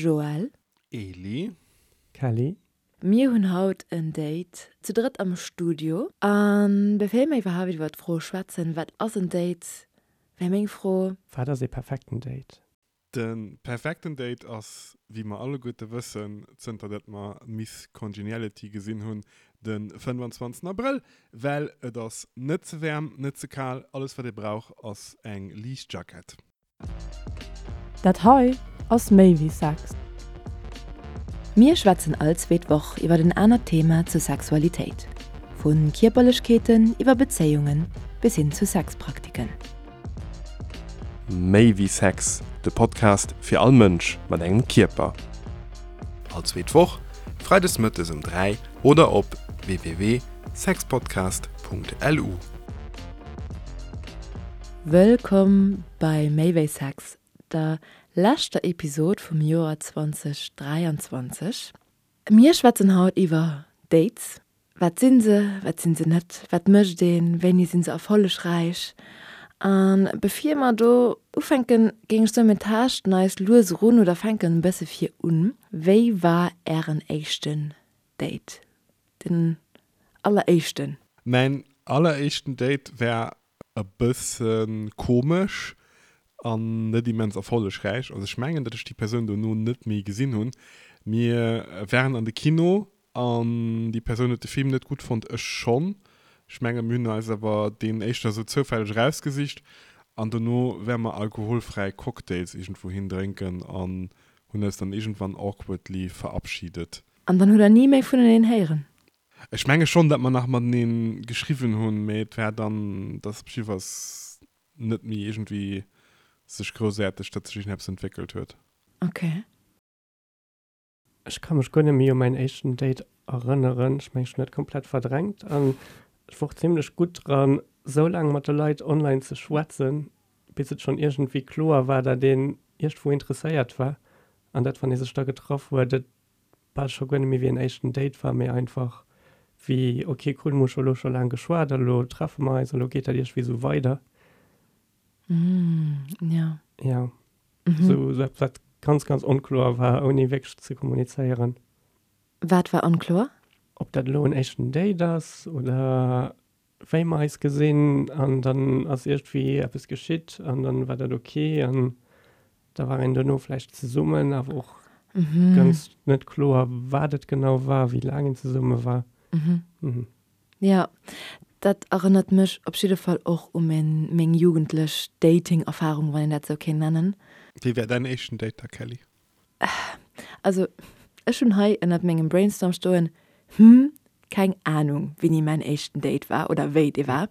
Joël. Eli. Kelly. Mir hunn haut en Date zu drëtt am Studio. An bevir mir iwwerhaapt iwwer d'Fro schwätzen, wat ass en Date, wär meng Fro. Wat ass ee perfekten Date? De perfekten Date ass, wéi mer alleguerte wëssen, zënter dat mer Miss Congeniality gesinn hunn, de 25 Abrëll, well et ass net ze waarm, net ze kal, alles wat ee brauch ass eng liicht Jackett. Dat hei ass méi wéi Sex. Mir schwätzen all zweet Woch iwwer en anert Thema zur Sexualitéit, vu Kierperlechkeeten iwwer Bezéiungen bis hin zu Sexpraktiken. Méi wéi Sex, de Podcast fir all Mënsch mat engem Kierper. All zweet Woch, freides mëttes um 3 oder op www.sexpodcast.lu. Wëllkomm bei Méi wéi Sex, der leschter Episod vum Joer 2023. Mir schwätzen haut iwwer Dates, Wat sinn se, wat sinn se net, wat mécht een, wéini sinn se erfollegräich? A bevir mer do ufänken, géing ech soen, mir taaschten eis lues erun oder fänken e bësse vir un. Wéi war Ären éischten Date, den alleréischten? Mäin alleréischten Date war e bësse komesch an net immens erfollegräich. Also ech mengen, datt ech déi Persoun dono net méi gesinn hunn. Mir waren an de Kino An déi Persoun huet de Film net gutt fonnt, ech schonn. Ech menge mir hunn eis awer deen éischter esou zoufälleg erausgesicht an dono ware mer alkoholfräi Cocktails iergendwou hin drénken an hunn eis dann iergendwann awkwardly verabschiedet. An dann hutt der ni méi vuneneen héieren? Ech menge schonn, datt mer nach matenee geschriwwen hunn, mee et war dann, datt op jiddefalls net méi iergendwéi sech groussaarteg, datt sech iergendeppes entwéckelt huet. Ok. Ech ka mech guer net méi u mäin éischten Date erënneren. Ech mengen, ech hunn dat komplett verdrängt an ech wor och zimlech gutt dran, sou laang mat de Leit online ze schwätzen, bis et schonn iergendwéi kloer war, dat een iergendwou interesséiert war an dat, wann ee sech da getraff huet, et bal scho guer net méi wéi en éischten Date war, mee einfach wéi, ok cool, mir hu scho elo scho laang geschwat a lo treffe mer eis a lo geet dat iergendwéi sou weider. Ja. Ja. Mhm. So, so etwas, wat ganz, ganz onkloer war, ouni wierklech ze kommunizéieren. Wat war onkloer? Ob dat elo en éischten Date ass oder wéi mer eis gesinn an dann ass iergendwéi eppes geschitt an dann war dat ok an da war een dono vläicht zesummen, awer och mhm. ganz net kloer, wat et genau war, wéi laang een zesumme war. Mhm. Mhm. Jo, dat erënnert mech op jidde Fall och u meng jugendlech Dating-Erfarung, wann een dat esou kéint nennen. Wéi war däin éischten Date da, Kelly? Also, ech hunn hei ënnert mengem Brainstorm stoen, Hm, keng Anung, wéini mäin éischten Date war oder wéi dee war,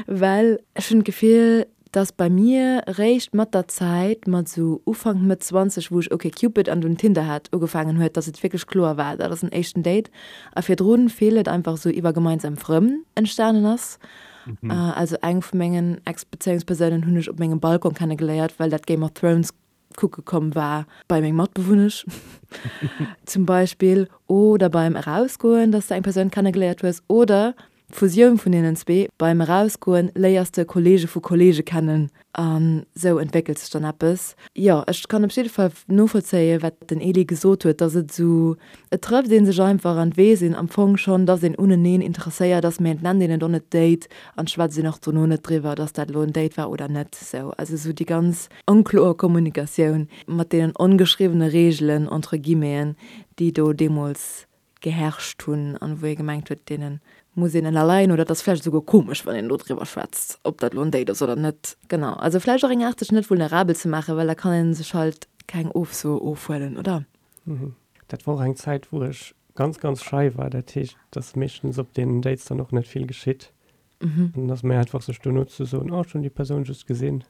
well ech hunn d'Gefill, dass bei mir réischt mat der Zäit, mat sou Ufank, Mëtt 20, wou ech OkCupid an dunn Tinder hat, ugefaangen huet, dass et wierklech kloer war, dat ass en éischten Date a virdrun vill et einfach sou iwwer gemeinsam Frënn entstanen ass. Also eng vu mengen Ex-Bezéiungspersounen hunn ech op mengem Balcon kennegeléiert, well dat Game of Thrones kucke komm war bei meng Matbewunnesch zum Beispill oder beim Erausgoen, dass de eng Persoun kennegeléiert hues oder d'Fusioun vun deenen zwee, beim Erausgoen léiers de Kollege vu Kollege kennen an sou entwéckelt sech dann eppes. Jo, ech kann op jidde Fall novollzéien, wat den Elie gesot huet, dass et esou, et trëfft ee sech einfach an et weess een am Fong schonn, dass een uneneen interesséiert ass, mee et nennt een et och net Date an schwätzt een och dono net driwwer, dass dat elo en Date war oder net. Sou, also sou déi ganz onkloer Kommunikatioun mat deenen ongeschriwwene Reegelen, entre guillemeten, déi do deemools geherrscht hunn an wou ee gemengt huet, deene muss een ënnerleien oder et ass vläicht esouguer komesch, wann een do driwwer schwätzt, ob dat elo en Date ass oder net. Genau, also vläicht och eng Aart, sech net vulnerabel ze maachen, well da kann ee sech halt keng Ofso ofhuelen, oder? Dat war och eng Zäit, wou ech ganz, ganz schei war. Dat heescht, dass meeschtens op deenen Dates dann och net vill geschitt. An dann ass méi einfach, sech dono ze soen, oh, ech hunn déi Persoun just gesinn.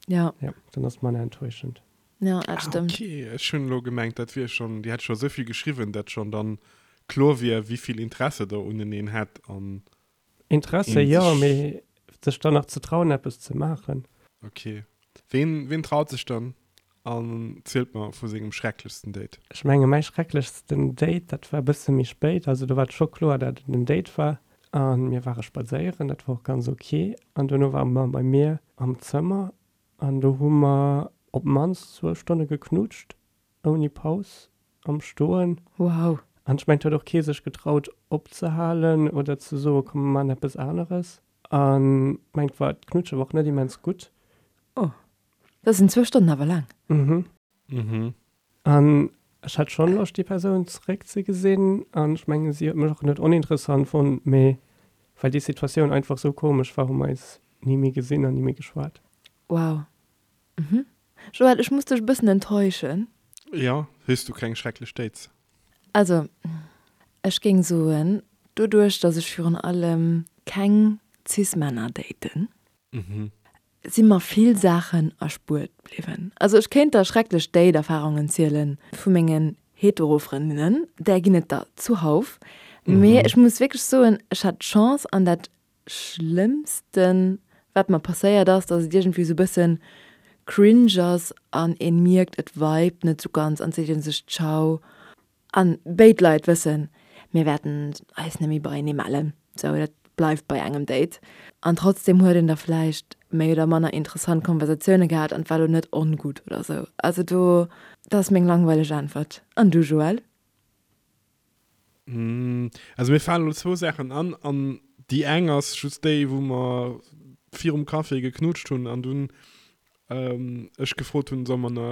Ja. Ja, dann ass et manner enttäuschend. Ja, dat stëmmt. Ah, okay, ech hunn elo gemengt, dat wier schonn, Dir hätt scho esou vill geschriwwen, dat schonn dann kloer wier, wéi vill Interesse Der uneneen hätt an Interesse een jo, sech. Mee sech dann nach ze trauen, eppes ze maachen. Okay. Ween, ween traut sech dann an zielt mer vu sengem schrecklechsten Date? Ech menge mäi schrecklechsten Date, dat war e bësse méi spéit. Also do war et scho kloer, dat et en Date war. A mir ware spadséieren, dat war och ganz ok. An duerno ware mer bei mir am Zëmmer an do hu mer. Op d'mannst zwou Stonne geknutscht, ouni Paus, am Stoen. Wow. An ech mengen, et huet och kee sech getraut opzehalen oder ze soen, komm mer maachen eppes aneres. An ech mengen, et war, d'Knutsche war och net immens gutt. Oh, dat sinn zwou Stonnen awer laang. Mhm. Mhm. An ech hat schonn Loscht, déi Persoun zeréckzegesinn. An ech mengen, si huet mech och net oninteressant fonnt, mee well déi Situatioun einfach sou komesch war, hu mer eis ni méi gesinn an ni méi geschwat. Wow. Mhm. Joël, ech muss dech e bëssen enttäuschen. Jo, hues du keng schrecklech Dates? Also, ech géing soen, doduerch, dass ech virun allem keng Cis-Männer daten, si mer vill Saachen erspuert bliwwen. Also, ech kéint der schrecklech Date-Erfarungen ziele vu mengen Hetero-Frëndinnen, där ginn et der zuhauf, mee ech muss wierklech soen, ech hat d'Chance an dat Schlëmmsten wat mer passéiert ass, dass et iergendwéi sou bëssen cringe ass an een mierkt et vibet net sou ganz an seet een sech ciao an béid Leit wëssen mir wäerten eis net méi beienee mellen, sou dat bleift bei engem Date an trotzdem huet een da vläicht méi oder manner interessant Konversatioune gehat an et war lo net ongutt oder sou. Also do, dat ass meng langweileg Äntwert. An du Joël? Also mir falen elo zwou Saachen an, an déi eng ass just déi, wou mer virum Café geknutscht hunn an dunn ech gefrot hunn, solle mer na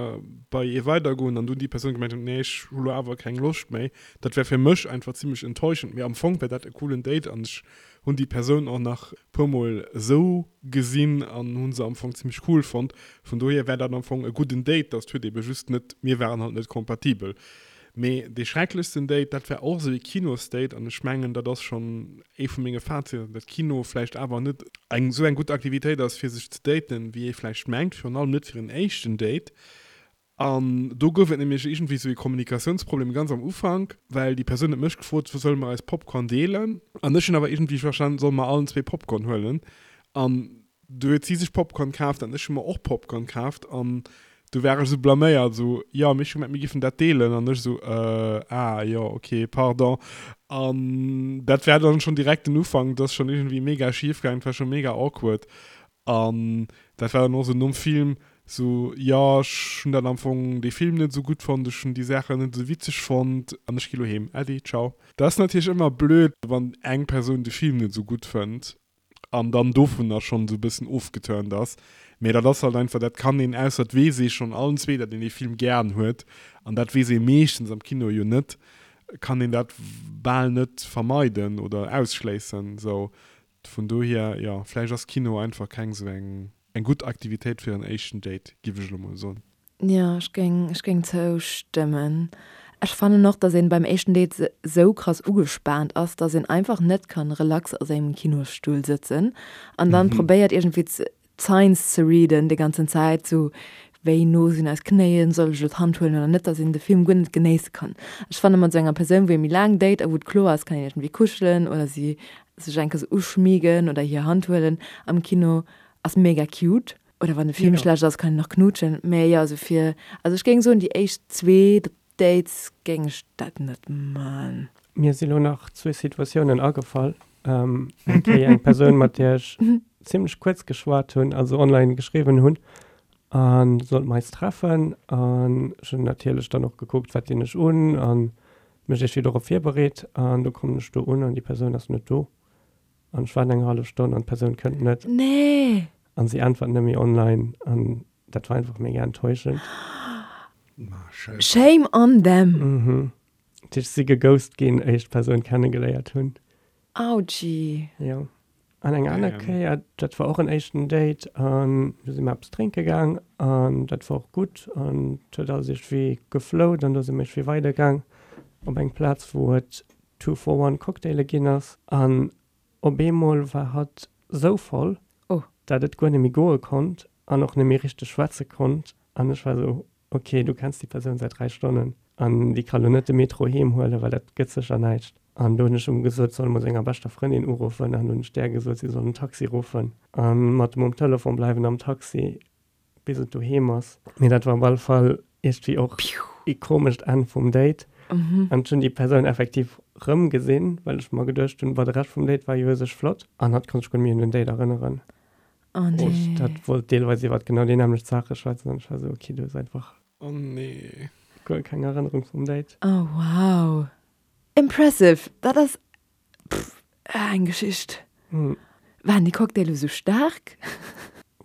bei ee weidergoen an dunn déi Persoun gemengt huet, nee ech hu lo awer keng Loscht méi. Dat war fir mech einfach zimmlech enttäuschend, mee am Fong war dat e coolen Date an ech hunn déi Persoun och nach e puer mol esou gesinn an hu se am Fong zimmlech cool fonnt. Vun dohier war dat am Fong e gudden Date, dass huet ebe just net, mir waren halt net kompatibel. Mee dee schrecklechsten Date, dat war och esou ee Kinosdate an ech mengen, dat ass schonn ee vu menge Faziten, datt Kino vläicht awer net eng esou eng gutt Aktivitéit ass, fir sech ze daten, wéi ee vläicht mengt, virun allem net fir en éischten Date. An do gouf et nämlech iergendwéi esou ee Kommunikatiounsproblem ganz am Ufank, well déi Persoun huet mech gefrot, solle mer eis Popcorn deelen? An ech hunn awer iergendwéi verstanen, solle mer allen zwee Popcorn huelen? An Du huet si sech Popcorn kaaft an ech hu mer och Popcorn kaaft an du war ech esou blaméiert, esou, jo, mee ech hu gemengt, mir giffen dat deelen an ech esou, äh, ah, jo, ok, pardon. An dat war dann schonn direkt den Ufank, dat ass schonn iergendwéi mega schif gaangen, dat war scho mega awkward an dat war dann och esou nom Film esou, jo, ech hunn dat am Fong, dee Film net esou gutt fonnt, ech hunn déi Saachen net esou witzeg fonnt an ech gi lo heem, Äddi, ciao. Dat ass natierlech ëmmer blöd, wann eng Persoun de Film net esou gutt fënnt an dann dovunner schonn esou e bëssen ofgeturnt ass. Mee dat ass halt einfach, dat kann een, ausser et weess ee schonn allen zwee, datt een dee Film gären huet, an dat weess ee meeschtens am Kino jo net, kann een dat bal net vermeiden oder ausschléissen. Sou, vun dohier, jo, vläicht ass Kino einfach keng esou eng Eng gutt Aktivitéit fir en éischten Date, giff ech elo mol soen. Jo, ech géing, ech géing zoustëmmen. Ech fannen och, dass een beim éischten Date sou krass ugespaant ass, dass een einfach net kann relax a sengem Kinosstull sëtzen an dann probéiert iergendwéi d'Signs ze readen déi ganzen Zäit, sou wéi no sinn eis Knéien, soll ech elo d'Hand huelen oder net, dass een de Film guer net genéisse kann. Ech fanne mat sou enger Persoun, wou ee méi laang date a wou et kloer ass, kann een iergendwéi kuschelen oder si sech eng Kéier sou uschmiegen oder hir Hand huelen am Kino ass mega cute. Oder wann de Film schlecht ass, kann een nach knutschen. Mä jo, also fir, also ech géing soen, déi éischt zwee Dates géing ech dat net man. Mir si lo nach zwee Situatiounen agefall. Eng Kéier eng Persoun, mat där ech zimlech kuerz geschwat hunn, also online geschriwwen hunn, a sollte mer eis treffen. An ech hunn natierlech dann och gekuckt, wat dinn ech un a mech iergendwéi dorop virbereet. An du kommen ech do un an déi Persoun ass net do. An ech waarden eng hallef Stonn an d'Persoun kënnt net. Nee! An si äntwert net méi online. An dat war einfach mega enttäuschend. Ma scheiße. Shame on them! Mhm. Dat heescht, ech si geghost ginn, éier ech d'Persoun kennegeléiert hunn. Autschi. Jo. An eng aner Damn. Kéier, dat war och en éischten Date an do si mer eppes drénke gaang an dat war och gutt an et huet alles iergendwéi geflowt an do si mer iergendwéi weidergaang op eng Plaz, wou et Two for one Cocktaile ginn ass an op eemol war hatt sou voll, Oh. dat et guer net méi goe konnt an och net méi richteg schwätze konnt an ech war sou, ok, du kenns déi Persoun säit 3 Stonnen an déi ka lo net de Metro heem huelen, well dat gëtt sécher näischt. An do hunn ech em gesot, soll emol senger beschter Frëndin uruffen an hunn ech där gesot, si soll en Taxi ruffen a mat em um Telefon bleiwen am Taxi, bis et doheem ass. Mee dat war op alle Fall iergendwéi och ee komescht Enn vum Date. An ech hunn déi Persoun effektiv rëm gesinn, well ech mer geduecht hunn, boah, de Rescht vum Date war jo u sech flott. An hatt konnt sech guer net méi un den Date erënneren. Oh nee. Dat wollt deelweis iwwert genau déi nämmlecht Saache schwätzen an ech war esou, okay, du hues einfach. Oh nee. Guer keng Erënnerung vum Date. Oh wow. Impressive. Dat ass pff eng Geschicht. Waren déi Cocktailer esou staark?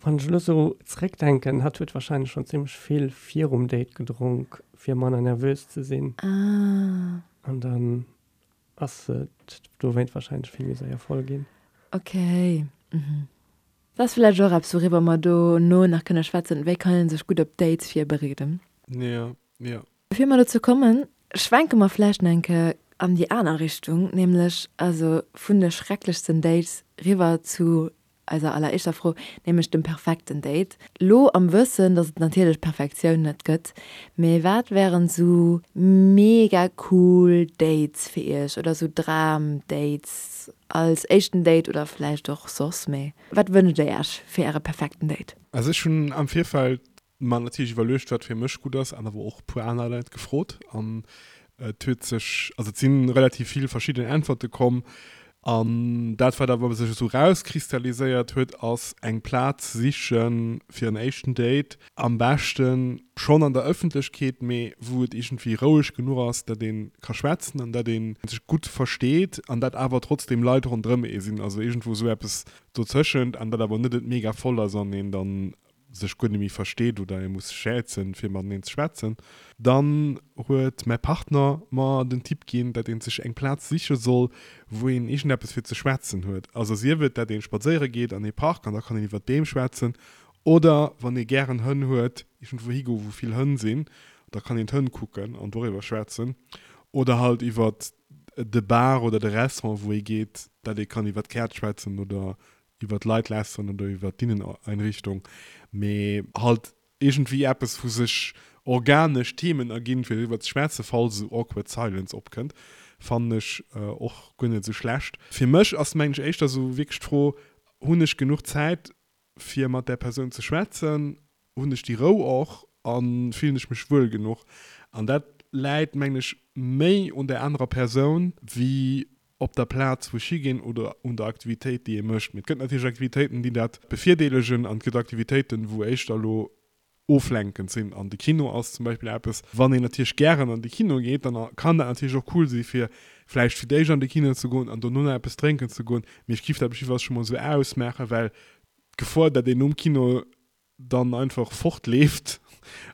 Wann ech elo sou zeréckdenken, hatt huet wahrscheinlech schonn zimmlech vill virum Date gedronk, fir manner nervös ze sinn. Ah. An dann ass et dowéint wahrscheinlech vill méi séier voll ginn. Ok, mhm. Dat ass vläicht och eppes, wouriwwer mer dono nach kënne schwätzen, wéi kann ee sech gutt op Dates virbereeden. Jo, jo. Bevir mer dozou kommen, schwenke mer vläicht nach eng Kéier an déi aner Richtung, nämlech also vun de schrecklechsten Dates riwwer zu eiser alleréischter Fro, nämlech dem perfekten Date. Lo am Wëssen, dass et natierlech Perfektioun net gëtt, mee wat wären sou mega cool Dates fir iech oder sou Dram-Dates als éischten Date oder vläicht och soss, mee wat wënscht dir iech fir äre perfekten Date? Also ech hunn am Virfeld mer natierlech iwwerluecht, wat fir mech gutt ass, an awer och e puer aner Leit gefrot. An et huet sech, also et si relativ vill verschidden Äntwerte komm. An dat, wat awer sech esou rauskristalliséiert huet, ass eng Plaz siche fir en éischten Date, am beschte schonn an der Ëffentlechkeet, mee wou et iergendwéi roueg genuch ass, datt ee ka schwätzen an datt ee sech gutt versteet an datt awer trotzdeem Leit ronderëm ee sinn, also iergendwou esou eppes dozëschent an datt awer net et mega voll ass an een dann sech guer net méi versteet oder ee muss schätzen fir mateneen ze schwätzen, dann huet mäi Partner mer den Tipp ginn, dat een sech eng Plaz siche soll, wou een iergendeppes fir ze schwätzen huet. Also sief et dat een spadséiere geet an ee Park an da kann een iwwert d'Beem schwätzen oder wann ee gären Hënn huet, iergendwou higoe wou vill Hënn sinn, da kann een d'Hënn kucken an doriwwer schwätzen oder halt iwwert de Bar oder de Restaurant wou ee geet, dat ee kann iwwert d'Käerz schwätzen oder iwwer d'Leit lästeren oder iwwer d'Inneneinrichtung, mee halt iergendwéi eppes, wou sech organesch Themen erginn, fir driwwer ze schwätzen, falls esou awkward silence opkënnt, fannen ech och guer net esou schlecht. Fir mech ass, mengen ech, éischter esou wierklech d'Fro, Hunn ech genuch Zäit, fir mat där Persoun ze schwätzen? Hunn ech déi Rou och a fillen ech mech wuel genuch? An dat läit, mengen ech, méi un där anerer Persoun wéi op der Plaz wou ech higinn oder un der Aktivitéit déi ee mécht. Mee et gëtt natierlech Aktivitéiten déi dat bevirdeelegen an et gëtt Aktivitéiten wou éischter elo oflenkend sinn an de Kino ass zum Beispill eppes, wann een natierlech gären an de Kino geet, dann kann dat natierlech och cool si fir vläicht fir d'éischt an de Kino ze goen an dono nach eppes drénken ze goen. Mee ech giff dat op jiddefalls scho mol esou ausmaachen, well d'Gefor dat een nom Kino dann einfach fortleeft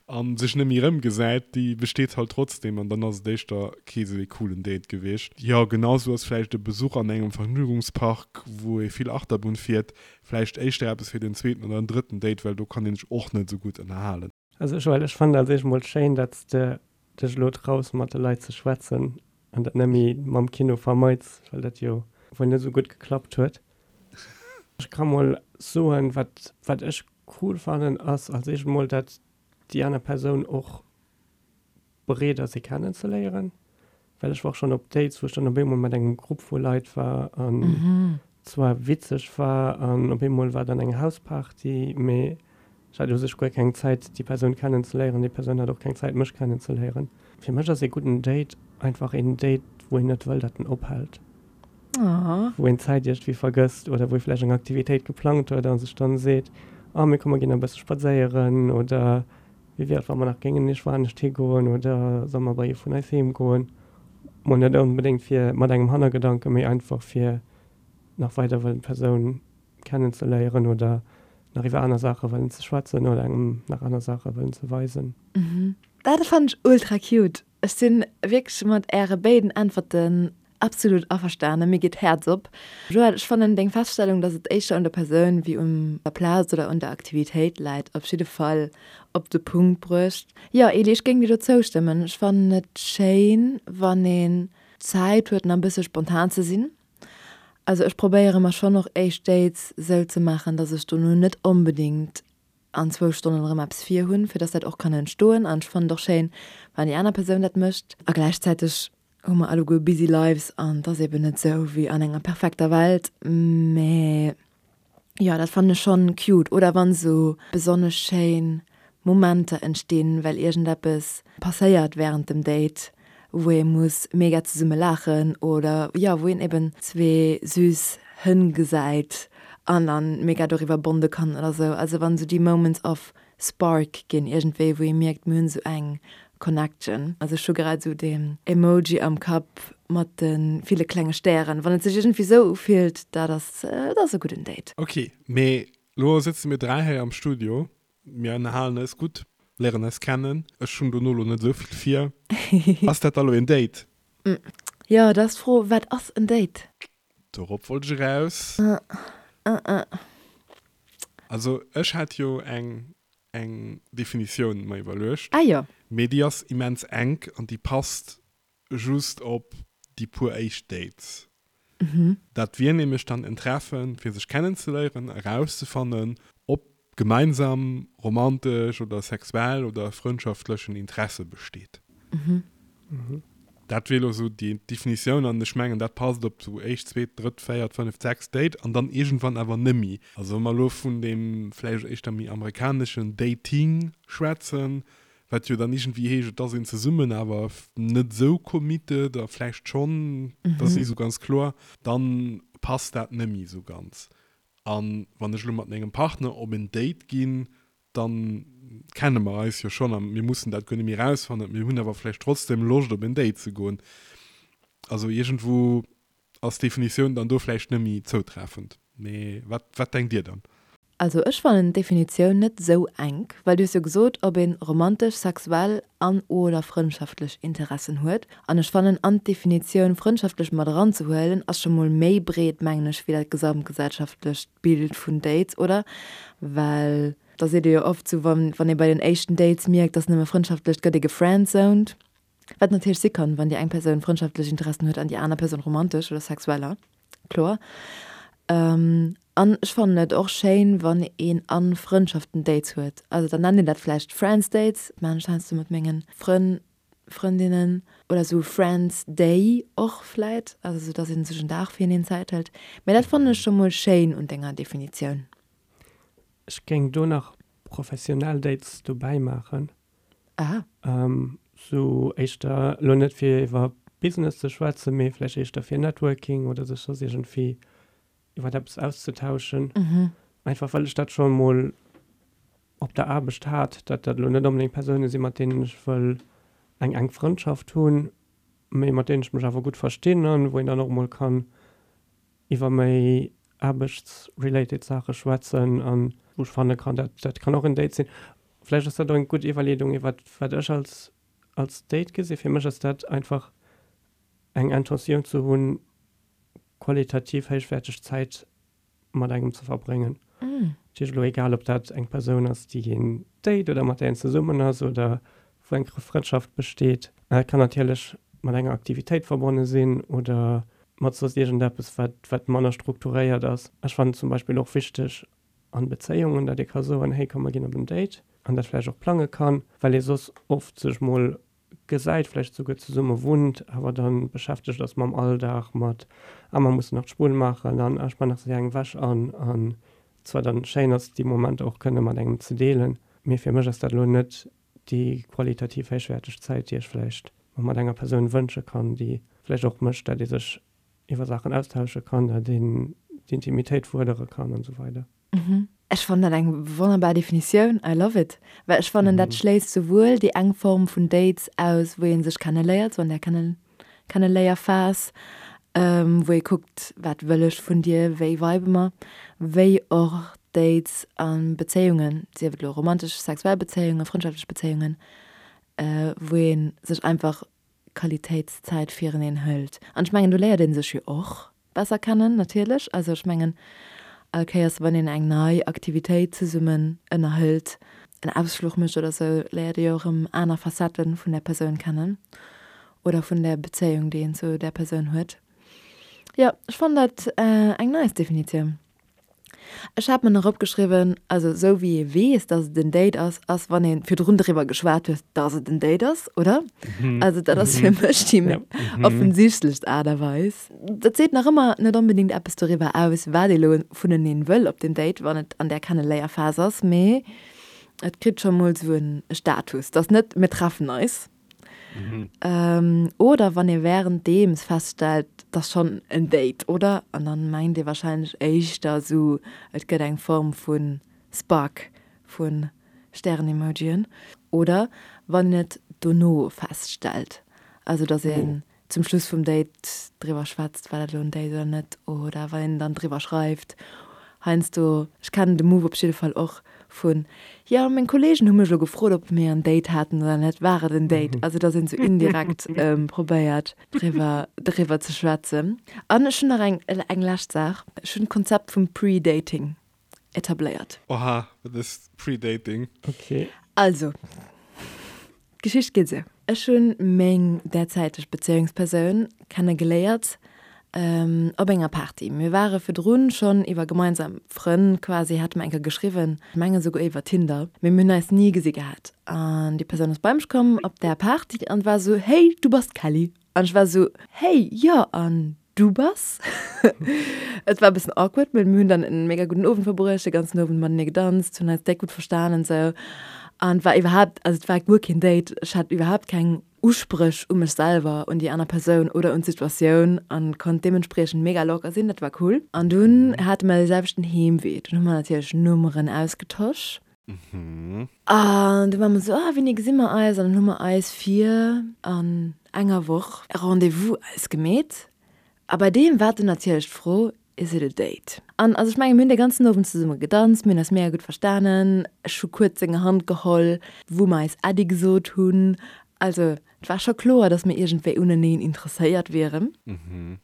a sech net méi erëmgesäit, déi besteet halt trotzdem an dann ass et éischter kee sou ee coolen Date gewiescht. Jo, genau sou ass vläicht e Besuch an engem Vergnügungspark, wou ee vill Achterbunn fiert, vläicht éischter eppes fir den zweeten oder den drëtten Date, well do kann een sech och net sou gutt ënnerhalen. Also Joël, ech fannen als éischt mol schéin, dat s de dech elo traus mat de Leit ze schwätzen an dat net méi mam Kino vermeits, well dat jo wuel net esou gutt geklappt huet. Ech ka mol soen, wat wat ech cool fannen, ass als éischt mol, dat déi aner Persoun och bereet ass ee kennenzeléieren, well ech war och schonn op Dates, wou ech dann op eemol mat engem Grupp vu Leit war an zwar witzeg war an op eemol war dann eng Hausparty, mee ech hat u sech guer keng Zäit déi Persoun kennenzeléieren, déi Persoun hat och keng Zäit mech kennenzeléieren. Fir mech ass ee gudden Date einfach een Date, wou een net wëll, datt en ophält. Wou een d'Zäit iergendwéi vergësst oder wou ee vläicht eng Aktivitéit geplangt huet a sech dann seet, oh mee komm mer ginn nach e bësse spadséieren oder wéi wier et wa mer nach géingen iergendwou anescht higoen oder solle mer bei ee vun eis heem goen. Mol net onbedéngt fir mat engem Hannergedanken, mee einfach fir nach weider wëllen d'Persoun kennenzeléieren oder nach iwwer aner Saache wëllen ze schwätzen oder engem nach aner Saache wëllen ze weisen. Dat fannen ech ultra cute. Ech sinn wierklech mat äre béiden Äntwerten absolut averstanen. Mir geet d'Häerz op. Joël, ech fannen deng Feststellung, dass et éischter un der Persoun wéi un der Plaz oder un der Aktivitéit läit, op jidde Fall op de Punkt bruecht. Jo, Eli, ech géing dir do zoustëmmen. Ech fannen et schéin, wann een Zäit huet, nach e bësse spontan ze sinn. Also ech probéiere mer schonn och éischt Dates sou ze maachen, dass ech dono net onbedéngt an zwou Stonnen erëm eppes vir hunn, fir dass dat och kann entstoen. An ech fannen et och schéin, wann déi aner Persoun dat mécht. A gläichzäiteg hu mer alleguer busy lives an et ass eben net sou wéi an enger perfekter Welt. Mä jo, dat fannen ech schonn cute. Oder wann sou besonnesch schéin Momenter entstinn, well iergendeppes passéiert wärend dem Date, wou ee muss mega zesumme laachen oder jo, wou een eben zwee süß Hënn gesäit. An dann mega doriwwer bonde kann oder sou. Also wann sou déi Moments of Spark ginn iergendwéi, wou ee mierkt, mir hunn sou eng Connection. Also ech hu grad sou deen Emoji am Kapp mat de ville klenge Stären. Wann et sech iergendwéi sou ufillt, dat ass, dat ass e gudden Date. Ok, mee lo sëtze mir 3 hei am Studio, mir ënnerhalen eis gutt, léieren eis kennen. Ech hunn dono lo net esou vill vir. Ass dat da lo een Date? Jo, dat ass d'Fro, wat ass en Date? Dorop wollt ech eraus. Also ech hat jo eng eng Definitioun mer iwwerluecht. Ah jo. Mee déi ass immens enk an déi passt just op déi puer éischt Dates. Dat wier nämlech dann en Treffen fir sech kennenzeléieren, erauszefannen ob gemeinsam romantesch oder sexuell oder frëndschaftlechen Interesse besteet. Dat wier elo esou déi Definitioun an ech mengen, dat passt op sou éischt, zweet, drëtt, véiert, fënneft, sechst Date an dann iergendwann awer nëmmi. Also wa mer elo vun deem vläicht éischter méi amerikaneschen Dating schwätzen, wat jo dann iergendwéi heescht, et ass een zesummen, awer net esou committed a vläicht schonn, dat ass ni esou ganz kloer, dann passt dat nëmmi esou ganz. A wann ech elo mat mengem Partner op en Date ginn, da kenne mer eis jo schonn a mir mussen dat guer net méi erausfannen. Mir hunn awer vläicht trotzdem Loscht op en Date ze goen. Also iergendwou ass d'Definitioun dann do vläicht net méi zoutreffend. Mee wat, wat denkt Dir dann? Also ech fannen d'Definitioun net sou enk, well du hues jo gesot, ob een romantesch, sexuell an oder frëndschaftlech Interessen huet. An ech fannen an d'Definitioun frëndschaftlech mat eranzehuelen ass scho mol méi breet, mengen ech, wéi dat gesamtgesellschaftlecht Bild vun Dates, oder? Well da seet ee jo oft sou, wann wann ee bei den éischten Dates mierkt, dass nëmme frëndschaftlech, gëtt ee gefriendzoned. Wat natierlech si kann, wann déi eng Persoun frëndschaftlech Interessen huet an déi aner Persoun romantesch oder sexueller, kloer. An ech fannen et och schéin, wann een a Frëndschaften Dates huet. Also dann nennt een dat vläicht Friends Dates, maachen ech heiansdo mat mengen Frënn, Frëndinnen, oder sou Friends Day och vläit, also sou dass ee sech en Dag fir eneen Zäit hëlt. Mä dat fannen ech scho mol schéin un denger Definitioun. Ech géing do nach professionell Dates dobäi maachen. Aha. Sou éischter, elo net fir iwwer Business ze schwätzen, mee vläicht éischter fir Networking oder sech soss iergendwéi iwwer eppes auszetauschen. Einfach well ech dat scho mol op der Aarbecht hat, datt dat elo net onbedéngt Persoune sinn, mat deenen ech wëll eng enk Frëndschaft hunn, mee mat deenen ech mech awer gutt verstinn an wou een dann och mol kann iwwer méi aarbechtsrelated Saache schwätzen an wou ech fanne kann, dat dat kann och en Date sinn. Vläicht ass dat och eng gutt Iwwerleedung iwwer wat ech als als Date gesinn. Fir mech ass dat einfach eng Intentioun ze hunn, qualitativ héichwäerteg Zäit mat engem ze verbréngen. Dat heescht elo egal ob dat eng Persoun ass, déi een date oder mat där een zesummen ass oder wou eng Frëndschaft besteet. Et kann natierlech mat enger Aktivitéit verbonne sinn oder mat soss iergendeppes, wat, wat manner strukturéiert ass. Ech fannen zum Beispill och wichteg an Bezéiungen, datt ee ka soen, hey komm mer ginn op en Date an dat vläicht och plange kann, well ee soss oft sech mol gesäit, vläicht souguer zesumme wunnt, awer dann beschäftegt ass mam Alldag, mat ah mer mussen nach d'Spull maachen an ah ech man nach séier eng Wäsch an an zwar dann schéin ass déi Momenter och kënne mat engem ze deelen, mee fir mech ass dat elo net déi qualitativ héichwäerteg Zäit, déi ech vläicht mer mat enger Persoun wënsche kann, déi vläicht och mécht, dat ee sech iwwer Saachen austausche kann, dat een d'Intimitéit fuerdere kann an esou weider. Ech fannen dat eng wonnerbar Definitioun, I love it, well ech fannen dat schléisst souwuel déi eng Form vun Dates aus, wou ee sech kenneléiert, sou an där Kenneléierphas, wou ee kuckt, wat wëll ech vun dir, wéi vibe mer, wéi och Dates a Bezéiungen, sief et elo romantesch, sexuell Bezéiungen, frëndschaftlech Bezéiungen, wou ee sech einfach Qualitéitszäit fireneen hëlt. An ech mengen, do léiert ee sech jo och besser kennen natierlech. Also ech mengen, all Kéiers wann een eng nei Aktivitéit zesummen ënnerhëlt, en Ausfluch mécht oder sou, léiert ee jo erëm aner Facettë vun där Persoun kennen oder vun där Bezéiung, déi een zu där Persoun huet. Jo, ech fannen dat eng nice Definitioun. Ech hat mer nach opgeschriwwen, also esou wéi ee weess, dass et en Date ass, ass wann ee virdrun driwwer geschwat huet, dass et en Date ass, oder? Also dat ass fir mech déi offensichtlechst Aart a Weis. Dat seet nach ëmmer net onbedéngt eppes doriwwer aus, wat ee lo vuneneen wëll op deem Date, wann et an där Kenneléierphas ass, mee et kritt scho mol esou e Status. Et ass net, mir treffen eis. Oder wann ee wärenddeems feststellt, 't ass schonn en Date, oder? An dann mengt ee warscheinlech éischter esou, et gëtt eng Form vu Spark, vu Stären-Emojien. Oder wann een et dono feststellt, also dass een zum Schluss vum Date driwwer schwätzt, war dat elo en Date oder net, oder wann een dann driwwer schreift. Heiansdo, ech kennen de Move op jidde Fall och vun, jo meng Kollegen hu mech elo gefrot, ob mir en Date haten oder net, war et en Date? Also dass een esou indirekt probéiert driwwer driwwer ze schwätzen. An ech hunn nach eng eng lescht Saach, ech hunn d'Konzept vum Pre-Dating etabléiert. Oha, wat ass Pre-Dating? Ok. Also, d'Geschicht geet esou, Ech hunn meng derzäiteg Bezéiungspersoun kenne geléiert op enger Party. Mir ware virdrun schonn iwwer gemeinsam Frënn quasi, hate mer eng Kéier geschriwwen, ech mengen esouguer iwwer Tinder, mee mir hunn eis ni gesi gehat. An déi Persoun ass bei mech komm op där Party an war esou, Hey, du bass d'Kelly? An ech war esou, Hey, jo, an Du bass? Et war e bëssen awkward, mee mir hunn dann en mega gudden Owend verbruecht, de ganzen Owend matenee gedanzt, hunn eis déck gutt verstanen esou. An et war iwwerhaapt, also et war guer keen Date, ech hat iwwerhaapt keng Uspréch u mech selwer, un déi aner Persoun oder un d'Situatioun an konnt deementspriechend mega locker sinn, dat war cool. An dunn hate mer de selwechten Heemwee, dunn hu mer natierlech Nummeren ausgetosch. An du war mer esou, ah wéini gesi mer eis? An dann hu mer eis fir an enger Woch e Rendez-vous ausgemeet. A bei deem war dunn natierlech d'Fro, Is it a date? An also ech mengen, mir hunn dee ganzen Owend zesumme gedanzt, mir hunn eis mega gutt verstanen, ech hu kuerz seng Hand geholl, wou mer eis Äddi gesot hunn. Also et war scho kloer, datt mir iergendwéi uneneen interesséiert wieren.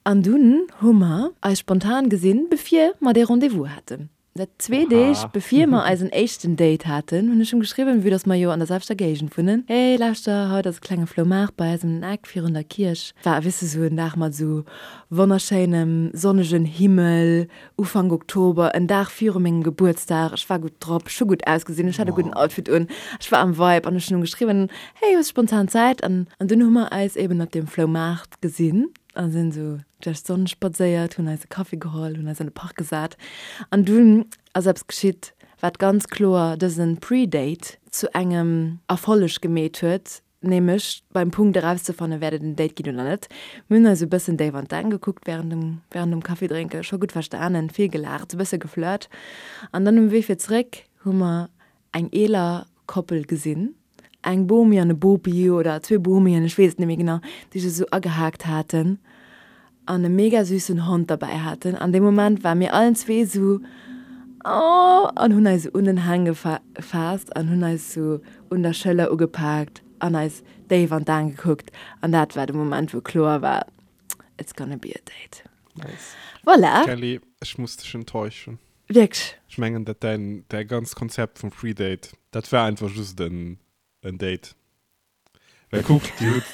An dunn hu mer eis spontan gesinn, bevir mer dee Rendez-vous haten. Dat zwee Deeg bevir mer eisen éischten Date haten, hunn ech him geschriwwen, vue dass mer jo an der selwechter Géigend wunnen, Hey, lauschter, haut ass e klenge Floumaart bei eis ëm den Eck virun der Kierch. War, weess de, sou en Dag mat sou wonnerschéinem sonnegen Himmel, Ufank Oktober, en Dag viru mengem Gebuertsdag. Ech war gutt drop, ech hu gutt ausgesinn, ech hat e gudden Outfit un, ech war am Vibe an ech hunn him geschriwwen, Hey, hues spontan Zäit? An dunn hu mer eis eben op deem Floumaart gesinn. A sinn esou duerch d'Sonn spadséiert, hunn eis e Kaffi geholl, hunn eis an de Park gesat. An dunn ass eppes geschitt, wat ganz kloer dëse Pre-Date zu engem Erfolleg gemeet huet, nämlech beim Punkt erauszefannen, wäert et en Date ginn oder net. Mir hunn eis e bëssen déif an d'Aen gekuckt wärend dem, wärend dem Kaffidrénken, scho gutt verstanen, vill gelaacht, e bësse geflirt. An dann um Wee fir zeréck hu mer eng eeler Koppel gesinn, eng Bomi an e Bopi oder zwee Bomien, ech weess et net méi genau, déi sech esou agehaakt haten an e mega süssen Hond derbäi haten. An dee Moment ware mir allen zwee esou, oh, an hunn eis esou un den Hang gefaasst an hunn eis esou un der Schëller ugepaakt an eis déif an d'Aen gekuckt. An dat war de Moment, wou kloer war, it's gonna be a date. Nice. Voilà. Kelly, ech muss dech enttäuschen. Wierklech? Ech mengen dat däin däi ganzt Konzept vum Free Date, dat war einfach just en en Date. Well kuck, dir hutt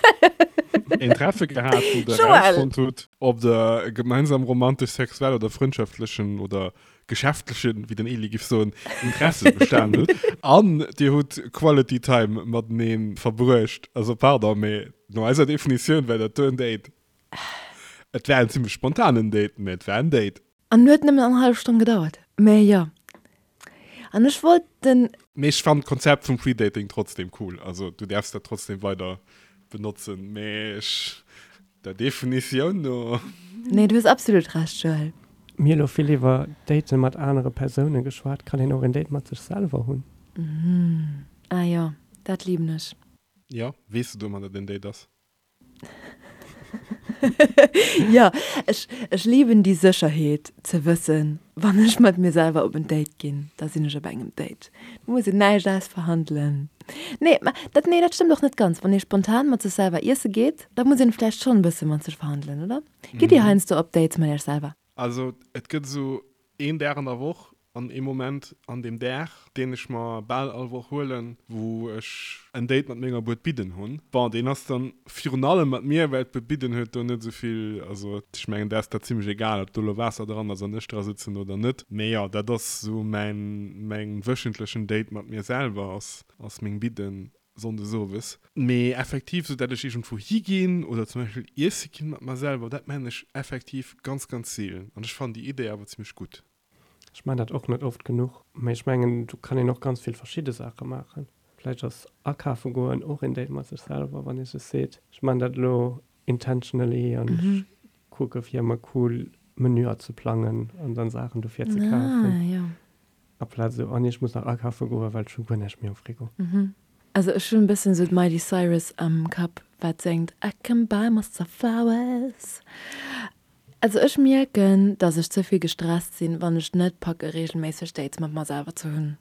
een Treffe gehat, wou der Joël! erausfonnt hutt, ob der e gemeinsam romantesch, sexuell oder frëndschaftlechen oder geschäftlechen, wéi den Eli giff soen, Interesse bestan hutt. An dir hutt Quality Time matenee verbruecht. Also pardon, mee no eiser Definitioun war dat do en Date. Et war en zimmlech spontanen Date, mee et war en Date. An huet nëmmen eng hallef Stonn gedauert. Mä jo. An ech wollt den. Mee ech fannen d'Konzept vum Predating trotzdem cool. Also du därfs dat trotzdem weider benotzen, mee ech, der Definitioun no. Nee, du hues absolut Recht, Joël. Mir hu lo vill iwwer Daten mat anere Persoune geschwat. Kann een och en Date mat sech selwer hunn? Ah jo, dat liben ech. Jo, weess de domat, dat en Date ass? Jo, ech, ech liben déi Sécherheet ze wëssen, wann ech mat mir selwer op en Date ginn, da sinn ech op engem Date. Do muss een näischt ausverhandelen. Nee, mä dat, nee, dat stëmmt och net ganz. Wann ee spontan mat sech selwer iesse geet, da muss een vläicht schonn e bësse mat sech verhandelen, oder? Gitt Dir heiansdo op Dates mat Iech selwer? Also et gëtt esou een Dag an der Woch, An ee Moment an deem Dag, deen ech mer bal all Woch huelen, wou ech en Date mat menger Buet Bidden hunn. Bon, deen ass dann virun allem mat mir, well d'Buet Bidden huet do net esou vill, also ech mengen, där ass dat zimlech egal, ob do elo Waasser dran ass an ech dra sëtzen oder net. Mee jo, dat ass esou mäin, mäin wöchentlechen Date mat mir selwer, ass, ass meng Bidden sonndes owes. Mee effektiv, esou dat ech iergendwou higinn oder zum Beispill iesse ginn mat mer selwer, dat maan ech effektiv ganz, ganz seelen. An ech fannen déi Idee awer zimlech gutt. Ech maan dat och net oft genuch, mee ech mengen do kann een och ganz vill verschidde Saache maachen. Vläicht ass akafe goen och een Date mat sech selwer, wann ee sech seet, ech man dat elo intentionally an ech kucke fir ëmmer cool Menüer ze plangen an dann Saachen dofir ze kafen. Aplaz esou, oh nee, ech muss nach akafe goen, well ech hu guer näischt méi am Frigo. Also ech hunn e bëssen esou d'Miley Cyrus am Kapp, wat séngt I can buy myself flowers. Also ech mierken, dass ech ze vill gestresst sinn, wann ech net packe regelméisseg Dates mat mer selwer ze hunn.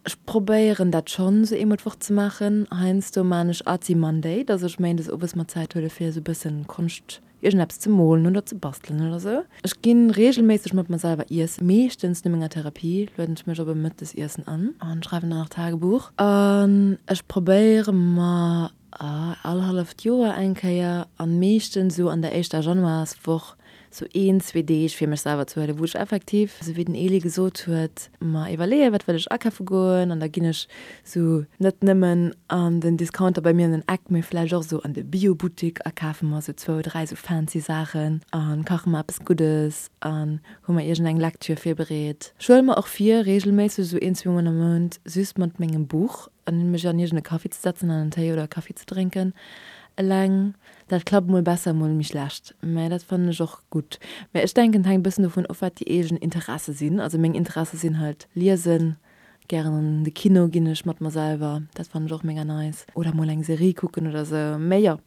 Ech probéieren dat schonn esou eemol d'Woch ze maachen. Heiansdo maan ech Artsy Monday, dass ech méindes owes mer Zäit huele fir esou bëssen Konscht, iergendeppes ze molen oder ze bastelen oder sou. Ech ginn regelméisseg mat mer selwer iessen, meeschtens no menger Therapie lueden ech mech op e Mëttesiessen an an schreiwen dann nach Tagebuch. An ech probéiere mer All halleft Joer eng Kéier, an meeschtens esou an der éischter Januarswoch, sou een, zwee Deeg fir mech selwer ze huelen, wou ech effektiv, esou wéi den Elie gesot huet, mer iwwerleeën, wat wëll ech akafe goen, an da ginn ech sou net nëmmen an den Discounter bei mir an den Eck, mee vläicht och esou an de Biobuttik a kafe mer sou zwou, dräi sou fancy Saachen a kache mer eppes Guddes an hu mer iergendeng Lektür virbereet. Ech huele mer och vir, reegelméisseg esou een, zweemol am Mount just mat mengem Buch An mech an iergend e Café ze setzen an en Téi oder e Kaffi ze drénken eleng, dat klappt mol besser, mol méi schlecht. Mä dat fannen ech och gutt. Mä ech denken, et hänkt e bëssen dovun of, wat déi eegen Interesse sinn. Also meng Interesse sinn halt liesen, gären an de Kino ginn ech mat mer selwer, dat fannen ech och mega nice. Oder mol eng Serie kucken oder sou. Mä jo,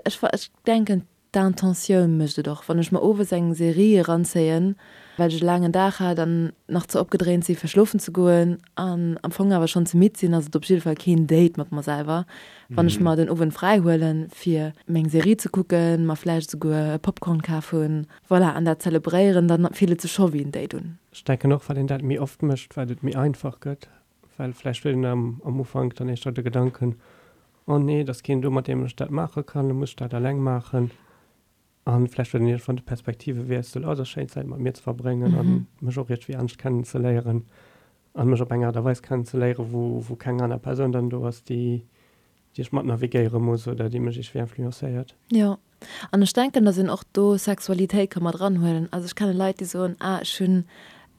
ech ech denken, D'Intentioun mécht et och. Wann ech mer owes eng Serie eranzéien, well ech e laangen Dag hat an nach ze opgedréint si fir schlofen ze goen an am Fong awer schonn ze midd sinn, ass et op jidde Fall keen Date mat mer selwer. Wann ech mer den Owend fräi huelen, fir meng Serie ze kucken, mer vläicht esouguer e Popcorn kaf hunn, voilà, an dat zelebréieren, dann fillt et sech scho wéi en Date un. Ech denken och, wat een dat méi oft mécht, wat et méi einfach gëtt, well vläicht huet een am Ufank dann éischter de Gedanken, Oh nee, et ass keen do, mat deem ech dat maache kann, da muss ech dat eleng maachen. A vläicht huet een iergendwann de Perspektivewiessel, oh, et ass schéin, Zäit mat mir ze verbréngen a mech och iergendwéi anescht kennenzeléieren a mech op eng Aart a Weis kennenzeléieren, wou, wou keng aner Persoun dann do ass, déi, déi ech mat navigéiere muss oder déi mech iergendwéi influencéiert. Jo, An ech denken, dass een och do Sexualitéit ka mat eranhuelen. Also ech kenne Leit, déi soen, ah ech hunn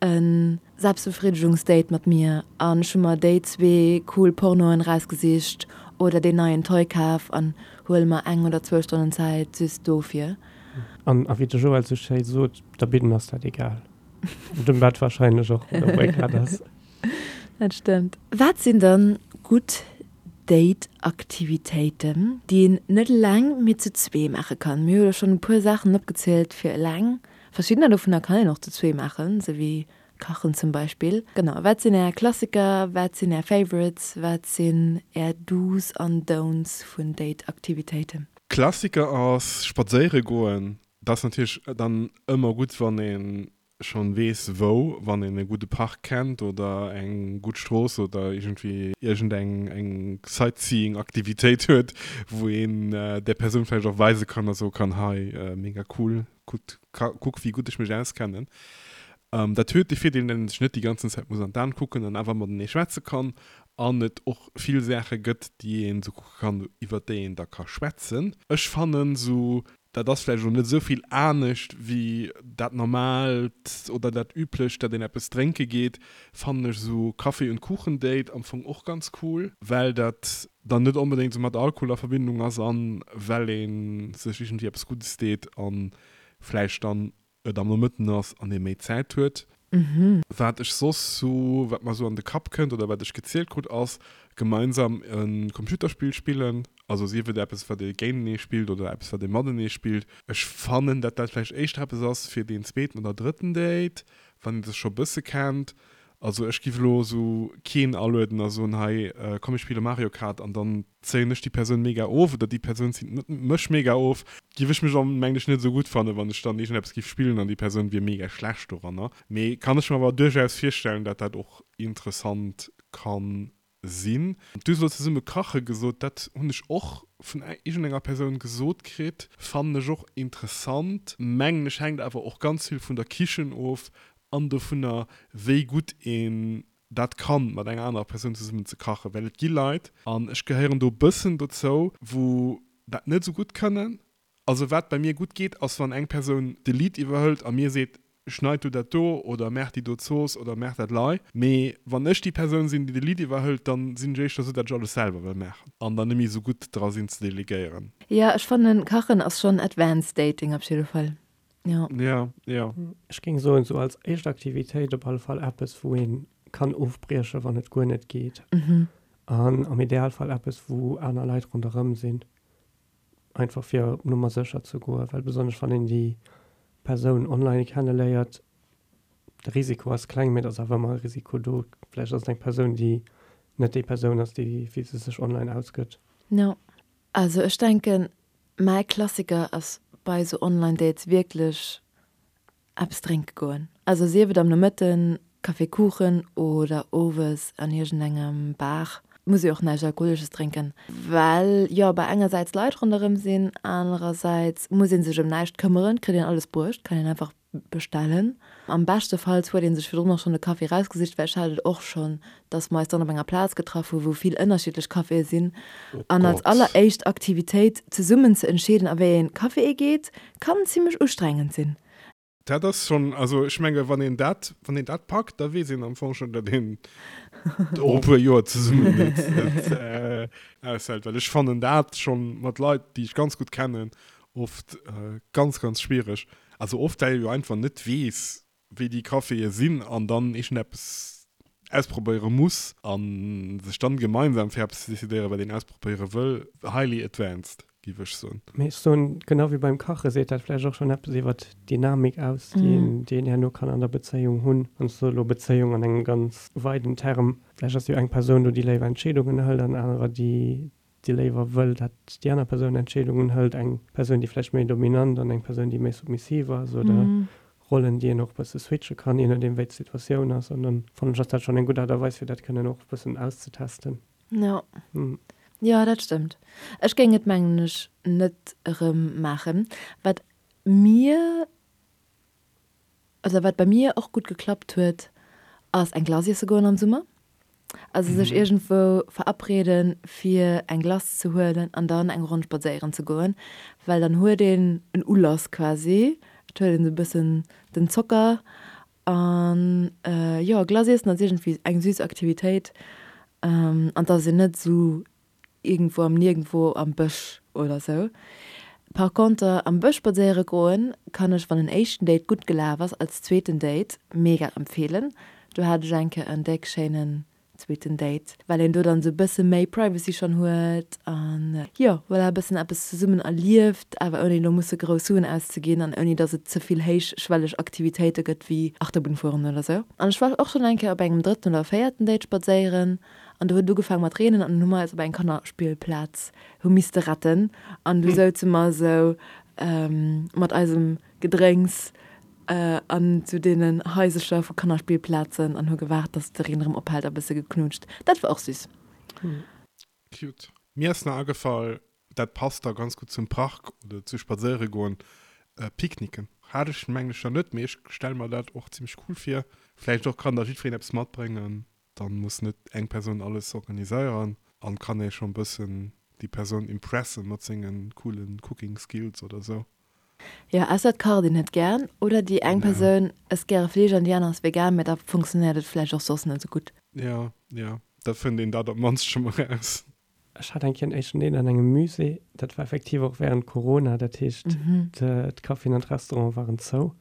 e Selbstbefriedegungsdate mat mir an ech hu mer déi zwee cool Pornoen erausgesicht oder deen neien Toy kaf an huele mer eng oder zwou Stonnen Zäit just dofir. An a wéi de Joël sou schéi sot, der Bidden ass dat egal. Dem Bett wahrscheinlech och, oder wou ee grad ass. Dat stëmmt. Wat sinn dann gutt Date-Aktivitéiten, déi een net eleng, mee zu zwee maache kann? Mir hu jo schonn e puer Saachen opgezielt fir eleng. Verschiddener dovunner kann een och zu zwee maachen, esou wéi kachen zum Beispill. Genau, wat sinn är Klassiker, wat sinn är Favorites, wat sinn är Do's an Don'ts vun Date-Aktivitéiten? Klassiker ass spadséiere goen. Dat ass natierlech dann ëmmer gutt, wann een schonn weess wou, wann een e gudde Park kennt oder eng gutt Strooss oder iergendwéi iergend eng eng Sightseeing Aktivitéit huet, wou een där Persoun vläicht och weise kann a soe kann, hei mega cool, kuckt kuck wéi gutt ech mech auskennen. Dat huet de Virdeel, datt een sech net déi ganzen Zäit muss an d'An kucken an awer matenee schwätze kann an et och vill Saache gëtt, déi een esou kucke kann, iwwert déi een da ka schwätzen. Ech fannen esou Dat ass vläicht elo net esou vill anescht wéi dat Normaalt oder dat Üblecht, dat een eppes drénke geet, fannen ech esou Kaffee und Kuchen Date am Fong och ganz cool, well dat dann net onbedéngt esou mat Alkohol a Verbindung ass an well ee sech iergendwéi eppes Guddes deet an vläicht dann et am Nomëtten ass an ee méi Zäit huet. Wat ech soss sou, wat mer sou an de Kapp kënnt oder wat ech gezielt krut ass, gemeinsam e Computerspill spillen. Also sief et eppes wat ee géintenee spillt oder eppes wat ee matenee spillt. Ech fannen dat dat vläicht éischter eppes ass fir deen zweeten oder drëtten Date, wann ee sech scho bësse kennt. Also ech giff elo sou keen alueden a soen, hei komm mir spille Mario Kart an dann zéien ech déi Persoun mega of oder déi Persoun zitt mech mega of. Giff ech mech am mengen ech net esou gutt fannen, wann ech dann iergendeppes giff spillen an déi Persoun wier mega schlecht doranner. Mee kann ech mer awer duerchaus virstellen, dat dat och interessant kann sinn. Du hues elo zesumme kache gesot, dat hunn ech och vun iergendenger Persoun gesot kritt, fannen ech och interessant. Mengen ech hänkt awer och ganz vill vun der Kichen of an dovunner wéi gutt een dat kann mat enger anerer Persoun zesummen ze kachen, well et gi Leit, an ech gehéieren do e bëssen dozou, wou dat net esou gutt kënnen. Also wat bei mir gutt geet, ass wann eng Persoun de Lead iwwerhëlt a mir seet, Schneid du dat do oder maach déi do Zooss oder maach dat lei. Mee wann ech déi Persoun sinn, déi de Lead iwwerhëlt, dann sinn ech éischter esou, dat ech alles selwer wëll maachen an dann net méi esou gutt dra sinn ze delegéieren. Jo, ech fannen kachen ass schon advanced dating op jidde Fall, jo. Jo, jo. Ech géing soen, sou als éischt Aktivitéit op alle Fall eppes wou een kann ofbriechen, wann et guer net geet. An am Idealfall eppes wou aner Leit ronderëm sinn. Einfach fir op Nummer sécher ze goen, well besonnesch wann een déi Persoun online kenneléiert, de Risiko ass kleng, mee et ass awer ëmmer e Risiko do. Vläicht ass et eng Persoun, déi net déi Persoun ass, déi wéi se sech online ausgëtt. Jo, also ech denken, mäi Klassiker ass bei esou Online-Dates wierklech Eppes drénke goen. Also sief et am Nomëtten, Café Kuchen oder owes an iergendengem Bar. Muss ee och näischt Alkoholesches drénken, well jo bei engersäits Leit ronderëm sinn, anerersäits muss ee sech ëm näischt këmmeren, kritt een alles bruecht, kann een einfach bestellen. Am beschtefalls huet ee sech virdrun och schonn de Café erausgesicht, well ech hat et och schonn, dass mer eis dann op enger Plaz getraff hu wou vill ënnerschiddlech Caféë sinn an als alleréischt Aktivitéit zesummen ze entscheeden a wéi een Café ee geet, kann zimmlech ustrengend sinn. Dat ass schonn, also ech menge wann een dat, wann een dat packt, da weess een am Fong schonn, datt een och e puer Joer zesummen net, net aushält. Well ech fannen dat schonn mat Leit, déi ech ganz gutt kennen, oft ganz, ganz schwiereg. Also oft, well ee jo einfach net weess, wéi déi Caféë sinn an dann iergendeppes ausprobéiere muss a sech dann gemeinsam fir eppes ze decidéieren, wat een ausprobéiere wëll, highly advanced, géif ech soen. Mee ech soen, genau wéi beim Kache seet dat vläicht och schonn eppes iwwert d'Dynamik aus, déi een, déi een herno kann an der Bezéiung hunn. An ech soe elo Bezéiung an engem ganz weiden Term. Vläicht ass jo eng Persoun do, déi léiwer Entscheedungen hëlt an anerer, déi déi léiwer wëll, dat déi aner Persoun Entscheedungen hëlt, eng Persoun, déi vläicht méi dominant an eng Persoun, déi méi submissiv ass, oder Rollen, déi een och e bësse switche kann, je nodeem wéi d'Situatioun ass. An dann fannen ech, ass dat schonn eng gutt Aart a Weis, fir dat kënnen och e bëssen auszetesten. Jo, jo, dat stëmmt. Ech géing et, mengen ech, net erëm maachen. Wat mir Also wat bei mir och gutt geklappt huet, ass eng Glace iesse goen am Summer. Also sech iergendwou verabreden fir eng Glace ze huelen an dann eng Ronn spadséieren ze goen, well dann huet een en Ulass quasi, et huet een esou e bëssen den Zocker an jo Glace iessen ass iergendwéi eng süß Aktivitéit an et ass een net esou iergendwou am Niergendwou am Bësch oder sou. Par conter am Bësch spadséiere goen kann ech, wann en éischten Date gutt gelaf ass, als zweeten Date mega empfeelen. Do hat ech eng Kéier en déck schéinen zweeten Date, well een do dann sou bësse méi Privacy schonn huet an jo voilà e bëssen eppes zesummen erlieft, awer ouni elo musse grouss Suen auszeginn an ouni dass et ze vill héichschwelleg Aktivitéite gëtt wéi Achterbunn fueren oder sou. An ech war och schonn eng Kéier op engem drëtten oder véierten Date spadséieren An do huet et ugefaang mat reenen an dunn hu mer eis op eng Kannerspillplaz hu misste retten an du souze mer esou mat eisem Gedrénks an zu deenen Haisecher vu Kannerspillplazen an hu gewaart, dass de Reen erëm ophält a bësse geknutscht. Dat war och süss. Cute. Mir ass nach agefall, dat passt da ganz gutt zum Park oder zu spadséiere goen, Picknicken. Hat ech mengen ech nach net, mee ech stelle mer dat och zimmlech cool vir. Vläicht och kann da jiddwereen eppes matbréngen. Dann muss net eng Persoun alles organiséieren an kann ee schon bëssen déi Persoun impressen mat sengen coolen Cooking Skills oder sou. Jo, ausser et kacht een net gären oder déi eng Persoun ësst gäre Fleesch an déi aner ass vegan, mä da funktionéiert et vläicht och soss net sou gutt. Jo, jo, da fënnt een dat op d'mannst scho mol raus. Ech hat eng Kéier en éischten Date an engem Musée, dat war effektiv och während Corona, dat heescht d'Caféen an d'Restaurante waren zou.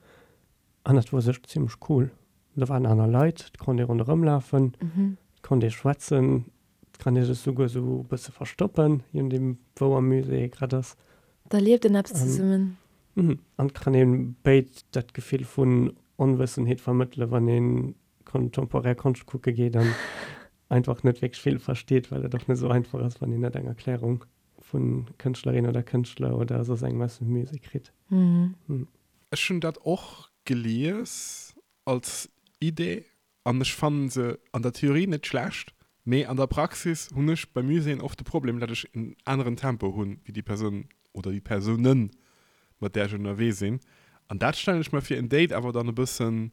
An dat wor sech zimlech cool. Do waren aner Leit, et konnt ee ronderëm lafen, et konnt ee schwätzen, et kann ee sech souguer sou e bësse verstoppen, je nodeem wou am Musée ee grad ass. Da lieft een eppes zesummen. An et kann ee béid dat Gefill vun Onwëssenheet vermëttelen, wann ee contemporaire Konscht kucke geet an einfach net wierklech vill versteet, well et och net esou einfach ass, wann een net eng Erklärung vu Kënschtlerin oder Kënschtler oder soss engem aus dem Musée kritt. Ech hunn dat och gelies als Idee an ech fannen se an der Theorie net schlecht, mee an der Praxis hunn ech bei Muséeën oft de Problem, dat ech en aneren Tempo hunn wéi déi Persoun oder déi Persounen, mat där ech ënnerwee sinn. An dat stellen ech mer fir en Date awer dann e bëssen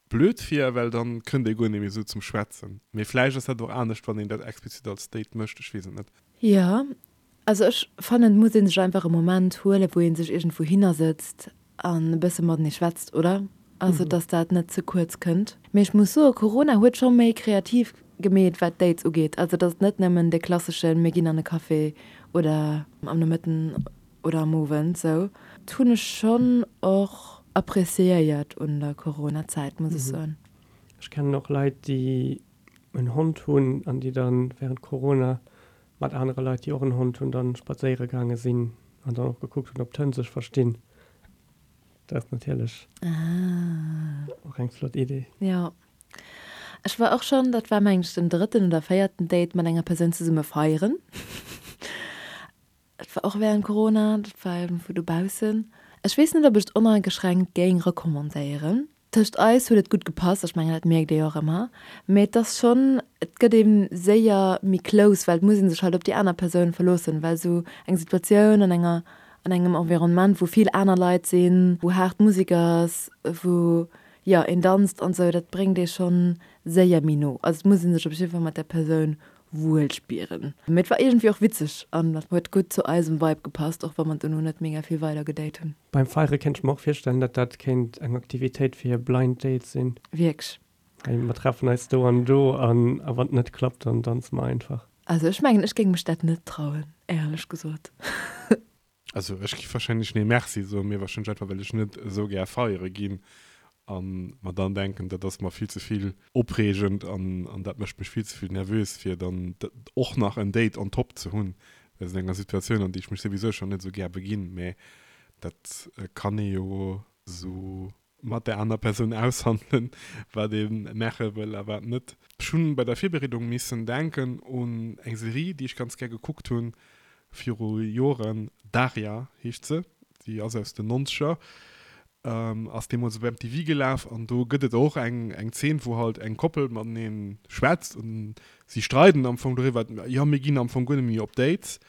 Blöd vir, well dann kënnt ee guer net méi esou zum Schwätzen. Mee vläicht ass dat och anescht, wann een dat explizit als Date mécht, ech weess et net. Jo, also ech fannen et muss een sech einfach e Moment huelen, wou een sech iergendwou hinner sëtzt an e bësse matenee schwätzt, oder? Also dass dat net ze kuerz kënnt. Mee ech muss soen, Corona huet scho méi kreativ gemeet wat Dates ugeet. Also et ass net nëmmen de klasseschen mir ginn an e Café oder am Nomëtten oder am Owend sou. Dat hunn ech schonn och appreciéiert un der Corona-Zäit, muss ech soen. Ech kennen och Leit déi en Hond hunn an déi dann während Corona mat anere Leit déi och en Hond hunn dann spadséiere gaange sinn an dann och gekuckt hunn ob d'Hënn sech verstinn. Dat ass natierlech och eng flott Idee. Jo. Ech war och schonn, dat war mengen ech den drëtten oder véierten Date mat enger Persoun zesumme feieren. Dat war och während Corona, dat war iergendwou dobaussen. Ech weess net, ob ech et oneingeschränkt géing recommandéieren. Tëscht eis huet et gutt gepasst, ech mengen dat mierkt ee jo och ëmmer, mee et ass schonn, et gëtt ee séier méi close, well et muss ee sech halt op déi aner Persoun verloossen, well esou eng Situatioun an enger, an engem Environnement, wou vill aner Leit sinn, wou haart Musek ass, wou, jo, een danzt an esou, dat bréngt ee schonn séier méi no. Also et muss ee sech op jidde Fall mat där Persoun wuel spieren. Mee et war iergendwéi och witzeg an huet gutt zu eisem Vibe gepasst, och wa mer dono net mega vill weider gedate hunn. Beim Feiere kéint ech mer och virstellen, datt dat kéint eng Aktivitéit fir Blind Dates sinn. Wierklech? Hey, mer treffen eis do an do an a wann et net klappt, dann danze mer einfach. Also ech mengen, ech géing mech dat net trauen, éierlech gesot. Also ech giff wahrscheinlech nee merci soen, mee wahrscheinlech einfach well ech net esou gär feiere ginn an mer dann denken dat ass mer vill ze vill opreegend an an dat mécht mech vill ze vill nervös fir dann och nach en Date on top ze hunn wéinst enger Situatioun an déi ech mech souwisou schonn net esou gär beginn. Mee dat kann ee jo esou mat der aner Persoun aushandelen, wat ee maache wëll a wat net. Ech hunn bei der Virbereedung missen denken un eng Serie, déi ech ganz gär gekuckt hunn viru Joren, Daria heescht se, déi ass aus den Nonzeger, ass deemools op MTV gelaf an do gëtt et och eng eng Zeen, wou halt eng Koppel matenee schwätzt an si streiden am Fong doriwwer, jo mir ginn am Fong guer net méi op Dates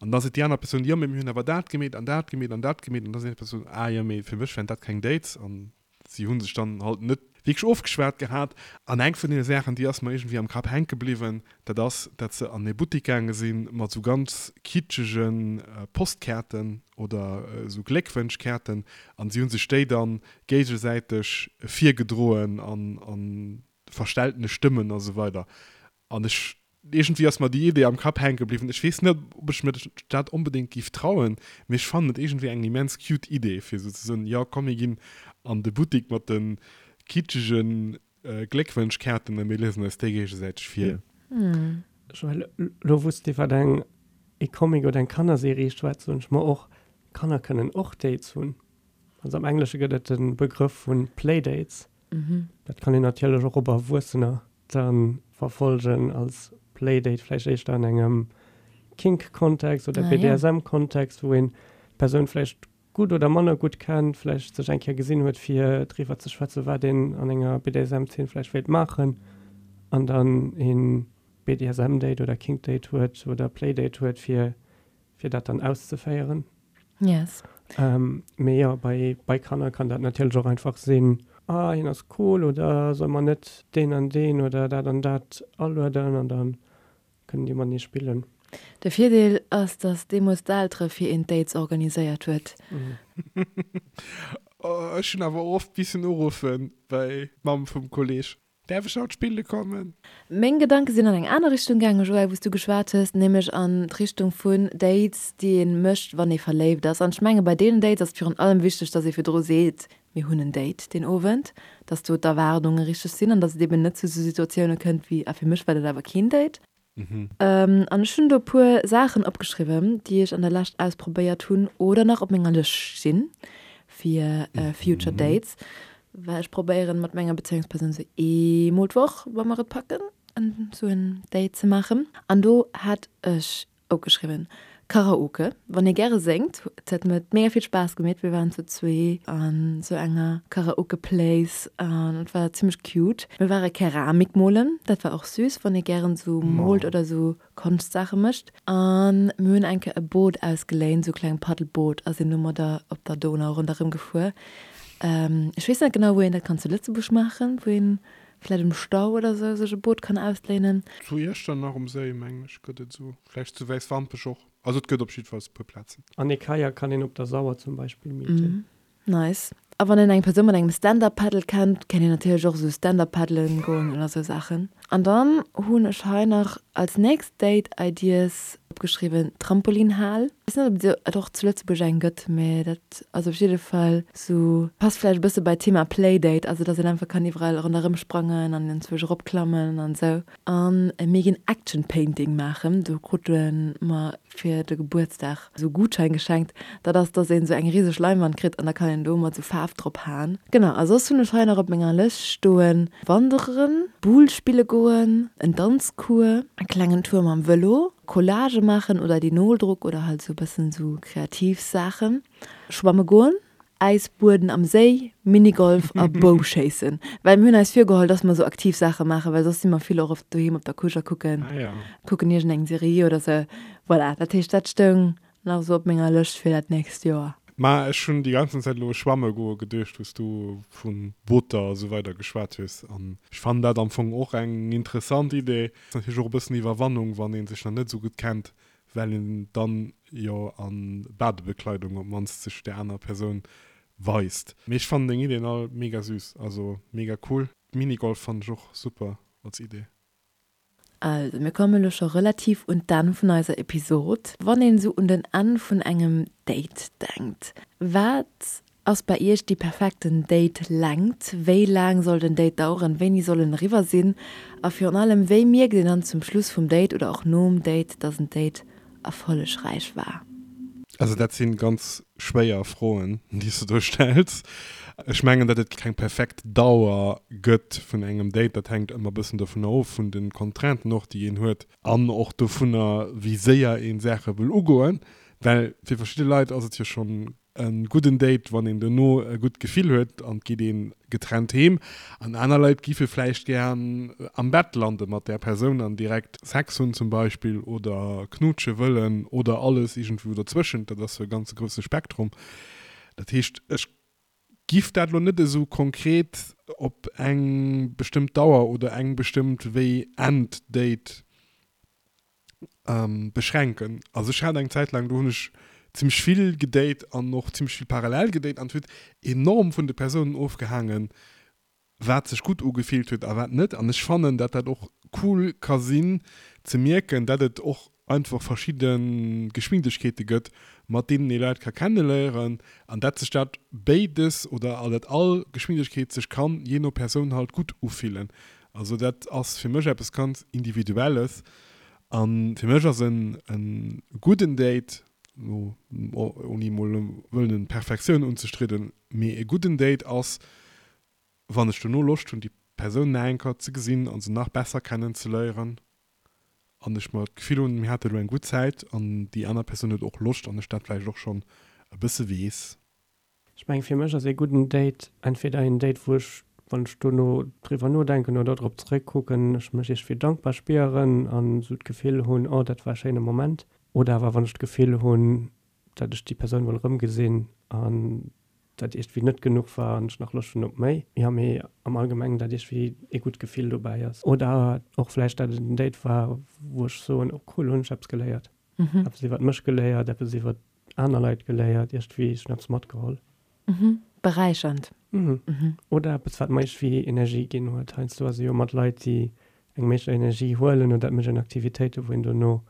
An da seet déi aner Persoun, jo, mee mir hunn awer dat gemeet an dat gemeet an dat gemeet. An da seet déi Persoun, ah jo, mee fir mech wären dat keng Dates. An si hu sech dann halt net wierklech ofgeschwat gehat. An eng vun deene Saachen, déi ass mer iergendwéi am Kapp hänke bliwwen, dat ass, dat se an e Buttik gaange si mat esou ganz kitschege Postkaarten oder esou Gléckwënschkaarten. An si hu sech déi dann géigesäiteg virgedroen an verstelltene Stëmmen a sou weider. An ech, iergendwéi ass mer déi Idee am Kapp hänke bliwwen. Ech weess net, ob ech mir dat onbedéngt géif trauen, mee ech fannen et iergendwéi eng immens cute Idee, fir esou ze soen, jo komm mir ginn an de Buttik mat de kitschege Gléckwënschkaarten a mir liesen eis déi géigesäiteg vir. Joël, elo wou s de iwwer eng e Comic oder eng Kannerserie schwätz, soen ech mer och, Kanner kënnen och Dates hunn. Also am Englesche gëtt et de Begrëff vu Playdates. Dat kann een natierlech och op Erwuessener da verfolgen als Playdate, vläicht éischter an engem Kink-Kontext oder BDSM-Kontext, wou een d'Persoun vläicht gutt oder manner gutt kennt, vläicht sech eng Kéier gesinn huet, fir driwwer ze schwätzen, wat een an enger BDSM-Zeen vläicht wéilt maachen, an dann ee BDSM-Date oder Kink-Date huet oder Playdate huet, fir fir dat dann auszeféieren. Yes. Ähm, mee jo, bei, bei Kanner kann dat natierlech och einfach sinn, ah, hien ass cool oder soll mer net deen an deen oder dat an dat alueden an dann kënnen déi matenee spillen. De Virdeel ass, dass deemools d'Eltere fir een d'Dates organiséiert huet. Oh, ech hunn awer oft missen uruffen bei d'Mamm vum Kolleg. Däerf ech haut spille kommen? Meng Gedanke sinn an eng aner Richtung gaangen, Joël, wou s du geschwat hues, nämlech an d'Richtung vun Dates, déi ee mécht, wann ee verléift ass. An ech menge bei deenen Dates ass et virun allem wichteg, dass ee virdru seet, Mir hunn en Date deen Owend, dass do d'Erwaardunge richteg sinn an dass et eben net zu esou Situatioune kënnt wéi, Ah, fir mech war dat awer keen Date. An ech hunn do e puer Saachen opgeschriwwen, déi ech an der Lescht ausprobéiert hunn oder nach op menger Lëscht stinn fir future dates, well ech probéieren mat menger Bezéiungspersoun sou eemol d'Woch, wa mer et packen, sou en Date ze maachen. An do hat ech Opgeschriwwen. Karaoke, wann ee gäre séngt. Et huet mir mega vill Spaass gemeet. Mir waren zu zwee an sou enger Karaoke Place an et war zimmlech cute. Mir ware Keramik molen, dat war och süß, wann ee gären sou moolt oder sou Konschtsaache mécht. An mir hunn eng Kéier e Boot ausgeléint, sou e kleng Paddelboot a sinn domadder op der Donau ronderëm gefuer. Ech weess net genau wou een dat kann zu Lëtzebuerg maachen, wou een Vläit um Stau oder sou sech e Boot kann ausléinen. Zu Iechternach um Séi, mengen ech, gëtt et esou. Vläicht zu Wäiswampech och. Also et gëtt op jiddefalls e puer Plazen. An e Kajak kann een op der Sauer zum Beispill mieten. Nice. A wann een eng Persoun mat engem Stand-Up Paddle kennt, kann een natierlech och esou Stand-Up paddelen goen oder esou Saachen. An dann hunn ech hei nach als nächst Date Ideas opgeschriwwen, Trampolinhal. Weess net ob et och zu Lëtzebuerg eng gëtt, mee dat ass op jidde Fall esou, passt vläicht e bësse bei d'Thema Playdate, also dass een einfach kann iwwerall ronderëm sprangen an enzwousch eropklammen an esou. An mir ginn Action Painting maachen, do krute mer fir de Gebuertsdag esou Gutschein geschenkt, dat ass dass een esou eng riseg Leinwand kritt an da kann een do mat esou Faarf drop haen. Genau, a soss hunn ech hei nach op menger Lëscht stoen, Wanderen, Boule spille goen, en Danzcours, e klengen Tour mam Vëlo, Collage maachen oder Linoldruck oder halt esou e bëssen esou kreativ Saachen, schwamme goen, Äisbueden am Séi, Minigolf a Bouschéissen. Well mir hunn eis virgeholl, dass mer esou aktiv Saache maachen, well soss si mer vill och oft doheem op der Couche a kucken, kucken iergendeng Serie oder sou. Voilà, dat heescht, dat stoung nach esou op menger Lëscht fir dat nächst Joer. Ma ech hunn déi ganzen Zäit elo u schwamme goe geduecht, wou s du vu Booter a sou weider geschwat hues. An ech fannen dat am Fong och eng interessant Idee. Ass natierlech och e bëssen Iwwerwannung, wann ee sech nach net esou gutt kennt, well een dann jo a Badebekleidung op d'mannst sech där anerer Persoun weist. Mee ech fannen deng Ideen all mega süß, also mega cool. Minigolf fannen ech och super als Idee. Also mir kommen elo scho relativ un d'Enn vun eiser Episod. Wann een esou un den Enn vun engem Date denkt, wat Ass bei Iech déi perfekten Date-Längt? Wéi laang soll den Date daueren? Wéini soll en eriwwer sinn? A virun allem, wéi mierkt een dann zum Schluss vum Date oder och nom Date, dass en Date erfollegräich war? Also dat si ganz schwéier Froen, déi s de do stells. Ech mengen, datt et keng perfekt Dauer gëtt vun engem Date. Dat hänkt ëmmer e bëssen dovunner of, vun de Contrainten och, déi een huet an och dovunner, wéi séier ee Saache wëll ugoen. Well fir verschidde Leit ass et jo schonn e gudden Date, wann een dono e gutt Gefill huet an et geet ee getrennt heem. An aner Leit giffe vläicht gär am Bett lande mat där Persoun an direkt Sex hunn zum Beispill oder knutsche wëllen oder alles iergendwou dozwëschent. Dat ass jo e ganze grousse Spektrum. Dat heescht, ech giff dat elo net esou konkret op eng bestëmmt Dauer oder eng bestëmmt wéi end Date beschränken. Also ech hat eng Zäit laang, do hunn ech zimmlech vill gedate an och zimmlech vill parallel gedate an et huet enorm vun de Persounen ofgehaangen, wat sech gutt ugefillt huet a wat net. An ech fannen, dat dat och cool ka sinn ze mierken, dat et och einfach verschidde Geschwindegkeete gëtt, mat deenen ee Leit ka kenneléieren an dat sech dat béides oder dat all Geschwindegkeet sech kann jee no Persoun halt gutt ufillen. Also dat ass fir mech eppes ganz Individuelles. A fir mech ass en gudden Date, elo ouni emol wëllen Perfektioun unzestridden, mee e gudden Date ass, wann ech dono Loscht hunn, déi Persoun nach eng Kéier ze gesinn a se nach besser kennen ze léieren an ech mer d'Gefill hunn, mir hate elo eng gutt Zäit an déi aner Persoun huet och Loscht an ech dat vläicht och schonn e bësse weess. Ech mengen, fir mech ass ee gudden Date entweder een Date, wou ech, wann ech dono driwwer nodenken oder drop zeréckkucken, ech mech iergendwéi dankbar spieren an esou d'Gefill hunn, oh, dat war e schéine Moment. Oder awer wann ech d'Gefill hunn, dat ech déi Persoun wëll erëmgesinn an dat iergendwéi net genuch war an ech nach Loscht hunn op méi. Jo, mee am Allgemengen, dat iergendwéi ee gutt Gefill dobäi ass. Oder och vläicht, dat et en Date war, wou ech soen, oh cool, hunn ech eppes geléiert. Eppes iwwert mech geléiert, eppes iwwert aner Leit geléiert, iergendwéi, ech hunn eppes matgeholl. Mhm. Beräichernd. Mhm. Oder eppes, wat mer iergendwéi Energie ginn huet. Heiansdo ass e jo mat Leit, déi engem éischter Energie huelen oder et mécht een Aktivitéiten, wou een dono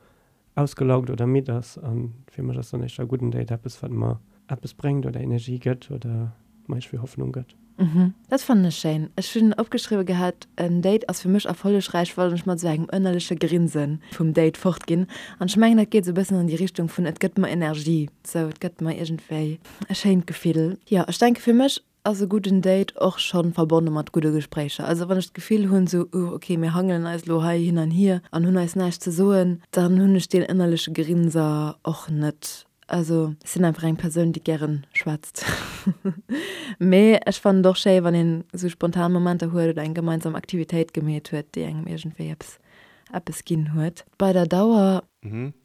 ausgelaugt oder midd ass. A fir mech ass dann éischter e gudden Date eppes, wat mer eppes bréngt oder Energie gëtt oder mer iergendwéi Hoffnung gëtt. Mhm, dat fannen ech schéin. Ech hunn opgeschriwwe gehat, en Date ass fir mech erfollegräich, wann ech mat esou engem ënnerleche Grinse vum Date fort ginn. An ech mengen, dat geet esou e bëssen an déi Richtung vun et gëtt mer Energie, sou et gëtt mer iergendwéi e schéint Gefill. Jo, ech denke fir mech ass e gudden Date och schonn verbonne mat gudde Gespréicher. Also wann ech d'Gefill hunn sou, uh ok, mir hangelen eis elo hei hin an hier an hunn eis näischt ze soen, dann hunn ech deen ënnerleche Grinser och net. Also ech sinn einfach eng Persoun, déi gären schwätzt. Mee ech fannen et och schéi, wann een esou spontan Momenter huet oder eng gemeinsam Aktivitéit gemeet huet, déi engem iergendwéi eppes eppes ginn huet. Bei der Dauer,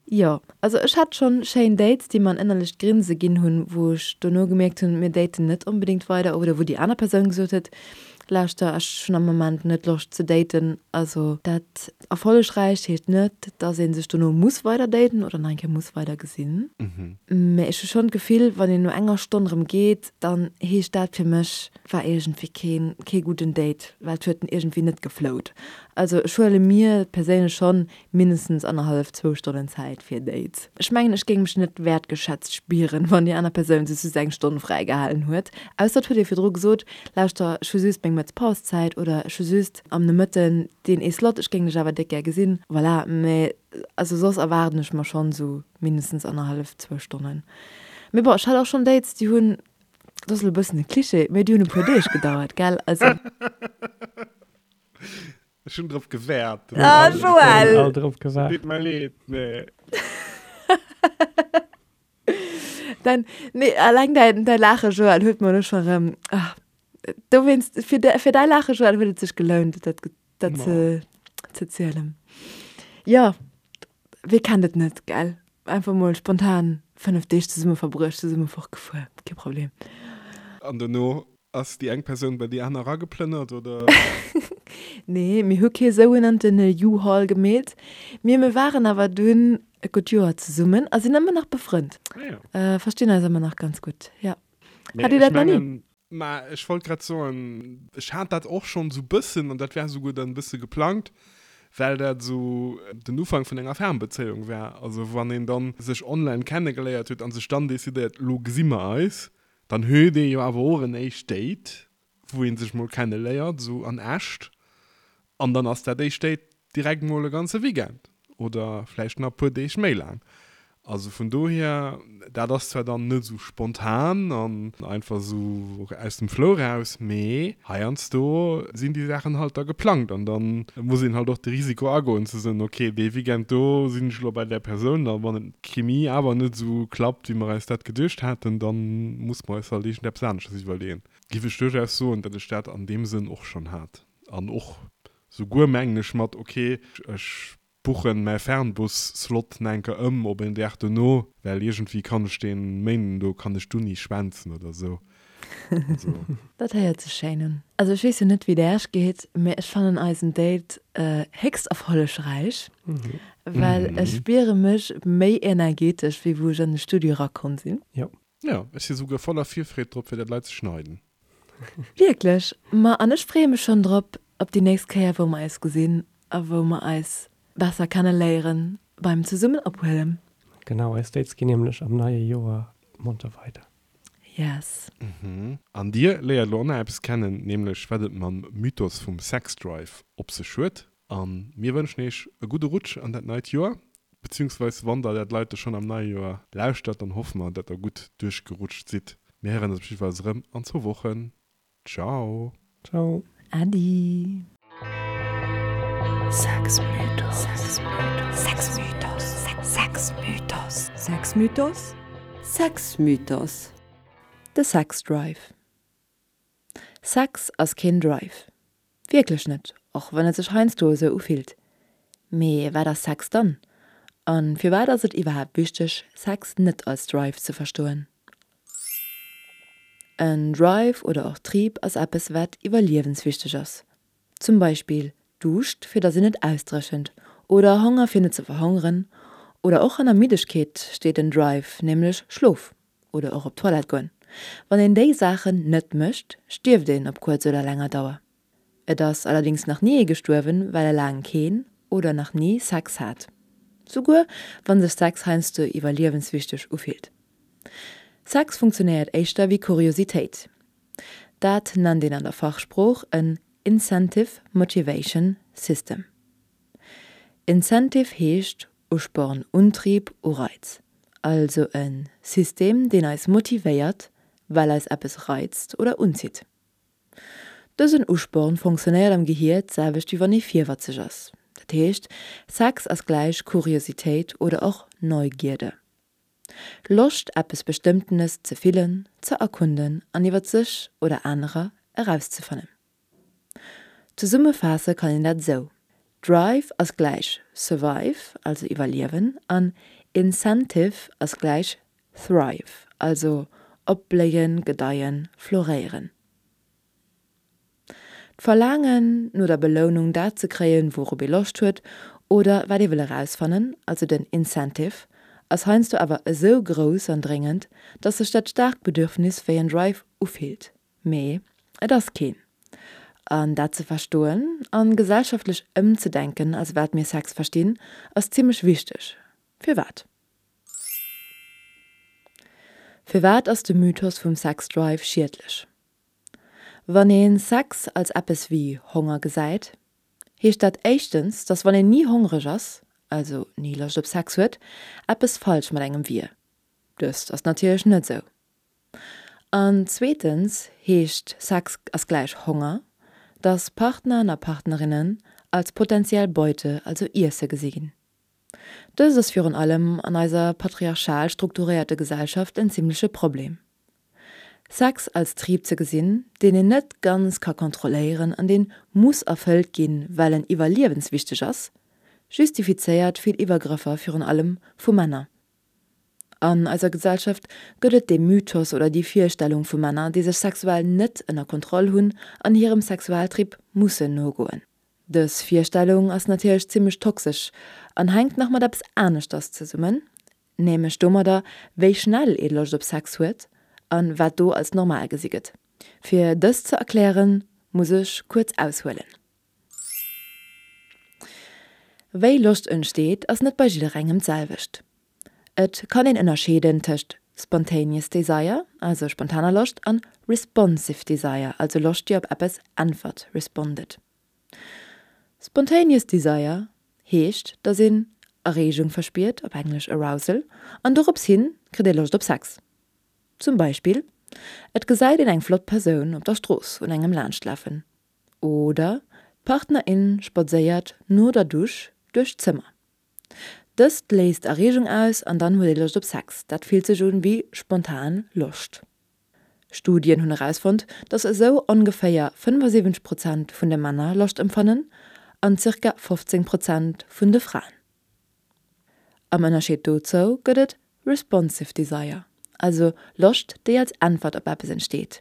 jo. Also ech hat schonn schéin Dates, déi mer en ënnerlecht Grinse ginn hunn, wou ech dono gemierkt hunn, mir daten net onbedéngt weider oder wou déi aner Persoun gesot huet, Lauschter, ech hunn am Moment net Loscht ze daten. Also dat erfollegräicht heescht net, dass ee sech dono muss weider daten oder nach eng Kéier muss weider gesinn. Mä ech hu schonn d'Gefill, wann een no enger Stonn erëm geet, dann heescht dat fir mech, war iergendwéi keen, kee gudden Date, well et huet iergendwéi net geflowt. Also ech huele mir perséinlech schonn mindestens annerhallef, zwou Stonnen Zäit fir Dates. Ech mengen, ech géing mech net wäertgeschätzt spieren, wann déi aner Persoun sech just eng Stonn fräigehalen huet. Ausser et huet ee virdru gesot, Lauschter, ech hu just meng Mëttespauszäit oder ech hu just am Nomëtten deen ee Slot, ech géing dech awer déck gär gesinn. Voilà, mä also soss erwaarden ech mer schonn esou mindestens annerhallef, zwou Stonnen. Mee bon, ech hat och schonn Dates, déi hunn, dat ass elo e bëssen e Cliché, mee déi hunn e puer Deeg gedauert, gell? Also. Ech hunn drop gewäert. Ah, Joël! All drop gewaart. Deet mer leed, mee. Dein, nee, alleng däin, däi Laache, Joël, huet mer elo scho rëm, ah, dowéinst, fir de, fir däi Laache, Joël, huet et sech gelount, dat, dat ze, ze zielen. Jo, wee kennt et net, gell? Einfach mol spontan 5 Deeg zesumme verbruecht, zesumme fortgefuer, kee Problem. An dono Ass déi eng Persoun bei déi aner erageplënnert, oder? Nee, mir hu kee sougenannten U-Haul gemeet. Mee mir waren awer dunn e gutt Joer zesummen a sinn ëmmer nach befrënnt. Ah jo. Verstinn eis ëmmer nach ganz gutt, jo. Mee Hat Dir ech dat nach ni? mengen. Mä ech wollt grad soen, ech hat dat och schonn esou bëssen, an dat war esouguer dann e bësse geplangt, well dat esou den Ufank vun enger Fernbezéiung war. Also wann een dann sech online kennegeléiert huet a sech dann decidéiert, elo gesi mer eis, Dann huet ee jo awer och en éischt Date, wou ee sech mol kenne léiert, esou an echt. An dann ass dat éischt Date direkt mol e ganze Weekend oder vläicht nach e puer Deeg méi laang. Also vun dohier, dat ass zwar dann net esou spontan an einfach esou aus dem Flow raus, mee heiansdo sinn déi Saachen halt da geplangt an dann muss een halt och de Risiko agoen ze soen, ok, dee Weekend do sinn ech elo bei där Persoun a wann et d'Chemie awer net esou klappt, wéi mer eis dat geduecht haten, da muss mer eis halt iergendeppes aneschters iwwerleeën. Giff ech duerchaus soen, datt ech dat an deem Sënn och schonn hat. An och souguer, mengen ech, mat ok, ech buchen mäi Fernbus-Slot nach eng Kéier ëm op en Dag dono, well iergendwéi kann ech dee Méinden do kann ech d'Uni schwänzen oder esou. Also. Dat héiert sech schéin un. Also ech weess jo net wéi et Äech geet, mee ech fannen eisen Date héchst erfollegräich, well ech spiere mech méi energetesch wéi wou ech an de Studio erakomm sinn. Jo. Jo, ech si souguer voller Virfreed drop fir dat lei ze schneiden. Wierklech? Ma an ech freeë mech schonn drop op déi nächst Kéier wou mer eis gesinn a wou mer eis besser kenne léieren beim zesummen ophuelen. Genau, eis Dates ginn nämlech am neie Joer monter weider. Yes. An dir léiert elo och nach eppes kennen, nämlech wat et mam Mythos vum Sexdrive op sech huet. A mir wënschen iech e gudde Rutsch an dat neit Joer, beziehungsweis wann der dat Leite schonn am neie Joer lauschtert, dann hoffe mer, dat der gutt duerchgerutscht sidd. Mir héieren eis op jiddefalls erëm an zwou Wochen. Ciao! Ciao! Äddi! Sexmythos. De Sexdrive. Sex ass keen Drive. Wierklech net, och wann et sech heiansdo esou ufillt. Mee wat ass Sex dann? A firwat ass et iwwerhaapt wichteg, Sex net als Drive ze verstoen? En Drive oder och Trieb ass eppes wat iwwerliewenswichteg ass. Zum Beispill Duuscht fir dass een net ausdréchent oder Honger fir net ze verhongeren oder och hanner Middegkeet steet en Drive, nämlech Schlof oder och op d'Toilette goen. Wann een déi Saachen net mécht, stierft een op kuerz oder länger Dauer. Et ass allerdings nach ni ee gestuerwen, well e laang keen oder nach ni Sex hat. Souguer wann sech Sex heiansdo iwwerliewenswichteg ufillt. Sex funktionéiert éischter wéi Kuriositéit. Dat nennt een an der Fachsprooch en Incentive Motivation System. Incentive heescht Usporn, Untrieb, Ureiz. Also e System, deen eis motivéiert, well eis eppes reizt oder unzitt. Dësen Usporn fonctionnéiert am Gehier d'selwecht wéi wann ee virwatzeg ass. Dat heescht, Sex ass gläich Kuriositéit oder och Neugierde. Loscht eppes Bestëmmtenes ze fillen, ze erkunden an iwwert sech oder anerer erauszefannen. Zesummefaasse kann een dat esou, Drive ass gläich Survive, also iwwerliewen, an Incentive ass gläich Thrive, also opbléien, gedeien, floréieren. D'Verlaangen no der Belounung, dat ze kréien, wourop ee Loscht huet oder wat ee wëll erausfannen, also den Incentive, ass heiansdo awer esou grouss an dréngend, dass sech dat staarkt Bedürfnis wéi en Drive ufillt. Mee et ass keen. An dat ze verstoen an gesellschaftlech ëmzedenken, als wat mir Sex verstinn, ass zimmlech wichteg. Firwat? Firwat ass de Mythos vum Sex-Drive schiedlech? Wann een Sex als eppes wéi Honger gesäit, heescht dat éischtens, dass wann een ni hongreg ass, also ni Loscht op Sex huet, eppes falsch mat engem wier. Dëst ass natierlech net esou. An zweetens heescht Sex ass gläich Honger, dass Partnern a Partnerinnen als potentiell Beute, also Iesse gesi ginn. Dëst ass virun allem an eiser patriarchal strukturéierte Gesellschaft en zimmleche Problem. Sex als Trieb ze gesinn, deen een net ganz ka kontrolléieren an deen muss erfëllt ginn, well en iwwerliewenswichteg ass, justifizéiert vill Iwwergrëffer virun allem vu Männer. An eiser Gesellschaft gëtt et dee Mythos oder déi Virstellung vu Männer, déi sech sexuell net ënner Kontroll hunn an hirem Sexualtrieb mussen nogoen. Dës Virstellung ass natierlech zimmlech toxesch an hänkt nach mat eppes aneschters zesummen, Nämlech domadder, wéi schnell ee Loscht op Sex huet an wat do als normal gesi gëtt. Fir dëst ze erklären, muss ech kuerz aushuelen. Wéi Loscht entsteet, ass net bei jidderengem d'selwecht. Et kann een ënnerscheeden tëscht spontaneous desire, also spontaner Loscht, an responsive desire, also Loscht déi op eppes äntwert, respondet. Spontaneous Desire heescht, dass een Erreegung verspiert, op Englesch Arousal, an dorops hin kritt ee Loscht op Sex. Zum Beispill, et gesäit een eng flott Persoun op der Strooss un engem laanschtlafen oder d'Partnerin spadséiert no der Dusch duerch d'Zëmmer. Dëst léist Erreegung aus an dann huet ee Loscht op Sex. Dat fillt sech un wéi spontan Loscht. Studien hunn erausfonnt, dass esou ongeféier 75 Prozent vun de Männer Loscht empfannen an zirka 15 Prozent vun de Fraen. Am Ënnerscheed dozou gëtt et Responsive Desire, also Loscht déi als Äntwert op eppes entsteet.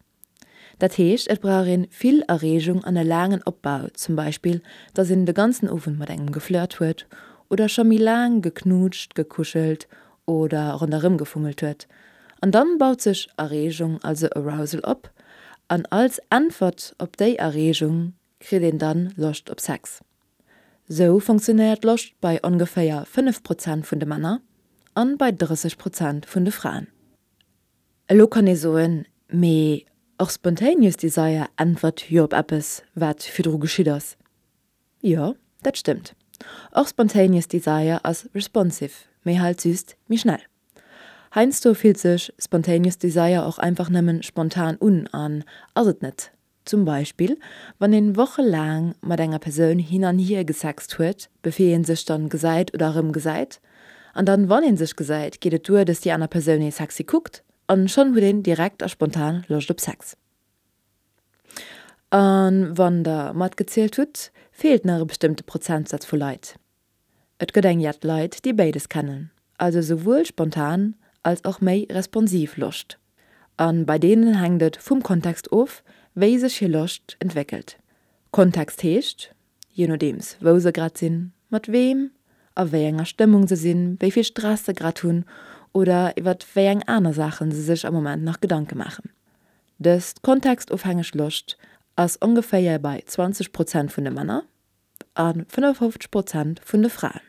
Dat heescht et brauch een vill Erreegung an e laangen Opbau, zum Beispill dass een de ganzen Owend mat engem geflirt huet oder scho méi laang geknutscht, gekuschelt oder ronderëm gefummelt huet. An dann baut sech Erreegung, also Arousal op an als Äntwert op déi Erreegung kritt een dann Loscht op Sex. Sou funktionéiert Loscht bei ongeféier 5 Prozent vun de Männer an bei 30 Prozent vun de Fraen. Elo kann ee soen, mee och spontaneous desire äntwert jo op eppes wat virdru geschitt ass. Jo, dat stëmmt. Och spontaneous desire ass responsive, mee halt just méi schnell. Heiansdo fillt sech spontaneous desire och einfach nëmmen spontan un an ass et net. Zum Beispill wann een wochelaang mat enger Persoun hin an hier gesext huet, bevir een sech dann gesäit oder erëm gesäit. An dann wann een sech gesäit, geet et duer, dass déi aner Persoun ee sexy kuckt an schonn huet een direkt a spontan Loscht op Sex. A wann der matgezielt hutt, feelt nach e bestëmmte Prozentsaz vu Leit. Et gëtt eng jett Leit, déi béides kennen, also souwuel spontan als och méi responsiv Loscht. A bei deenen hänkt et vum Kontext of, wéi sech hir Loscht entwéckelt. Kontext heescht, je nodeems wou se grad sinn, mat weem, a wéi enger Stëmmung se sinn, wéi vill Stress se grad hunn oder iwwer wéi eng aner Saachen se sech am Moment nach Gedanke maachen. Dës kontextofhängeg Loscht ass ongeféier bei 20 Prozent vun de Männer a 55 Prozent vun de Fraen.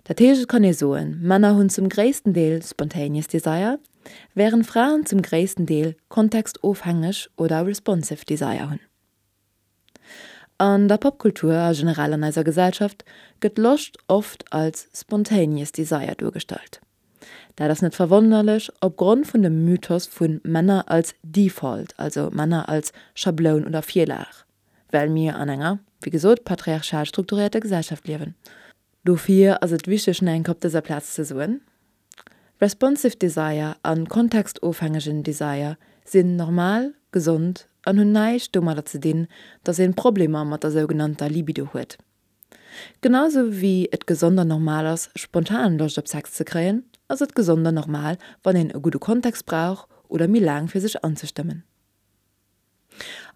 Dat heescht et kann ee soen, Männer hunn zum gréissten Deel spontaneous desire, wärend Fraen zum gréissten Deel kontextofhängeg oder responsive desire hunn. An der Popkultur a generell an eiser Gesellschaft gëtt Loscht oft als spontaneous desire duergestallt. Dat ass net verwonnerlech opgrond vun dem Mythos vu Männer als Default, also Männer als Schabloun oder Virlag, well mir an enger, wéi gesot, patriarchal strukturierter Gesellschaft liewen. Dofir ass et wichteg nach eng Kéier op dëser Plaz ze soen, Responsive Desire an kontextofhängegen Desire sinn normal, gesond an hunn näischt domadder ze dinn, dass een Problemer mat der sougenannter Libido huet. Genau sou wéi et gesond an normal ass spontan Loscht op Sex ze kréien, ass et gesond an normal wann een e gudde Kontext brauch oder méi laang fir sech anzestëmmen.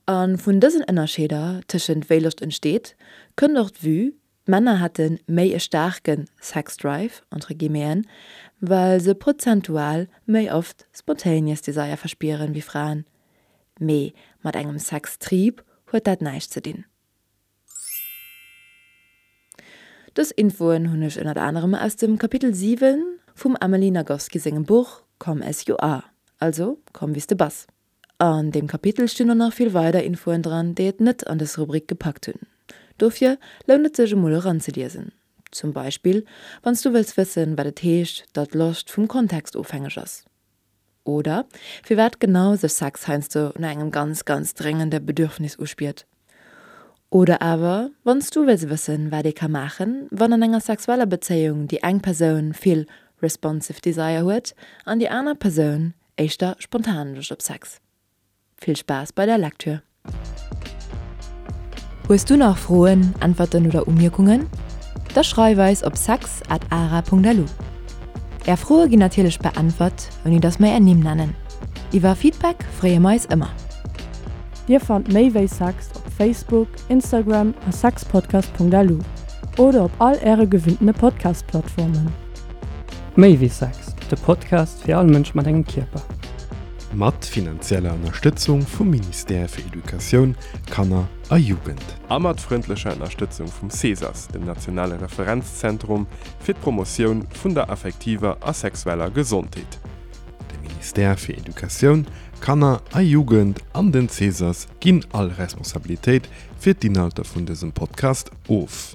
A vun dësen Ënnerscheeder tëschent wéi Loscht entsteet, kënnt och d'Vue, d'Männer hätte méi e staarke Sex Drive, entre guillemeten, well se prozentual méi oft spontaneous desire verspieren wéi Fraen. Mee mat engem Sextrieb huet dat näischt ze dinn. Dës Infoen hunn ech ënnert anerem aus dem Kapitel 7 vum Emily Nagoski sengem Buch Come as you are, also komm wéi s de bass. An deem Kapitel stinn och nach vill weider Infoen dran, déi et net an dës Rubrik gepackt hunn. Dofir lount et sech emol eranzeliesen. Zum Beispill wann s du wëlls wëssen, wat et heescht, datt Loscht vum Kontext ofhängeg ass. Oder firwat genau sech Sex heiansdo no engem ganz, ganz dréngende Bedürfnis uspiert. Oder awer wann s du wëlls wëssen, wat ee ka maachen, wann an enger sexueller Bezéiung déi eng Persoun vill responsive desire huet an déi aner Persoun éischter spontan Loscht op Sex. Vill Spaass bei der Lektür! Hues du nach Froen, Äntwerten oder Umierkungen? Da schreif eis op sex at ara.lu. Är Froe ginn natierlech beäntwert, ouni dass mer är Nimm nennen. Iwwer Feedback freeë mer eis ëmmer. Dir fannt méi wéi Sex op Facebook, Instagram a sexpodcast.lu oder op all äre gewinntene Podcast-Plattformen. Méi wéi Sex, de Podcast fir all Mënsch mat engem Kierper. Mat finanzieller Ënnerstëtzung vum Ministère fir Educatioun, Kanner a Jugend. A mat frëndlecher Ënnerstëtzung vum CESAS, dem nationale Referenzzentrum fir d'Promotioun vun der affektiver a sexueller Gesondheet. De Ministère fir Educatioun, Kanner a Jugend an den CESAS ginn all Responsabilitéit fir d'Inhalter vun dësem Podcast of.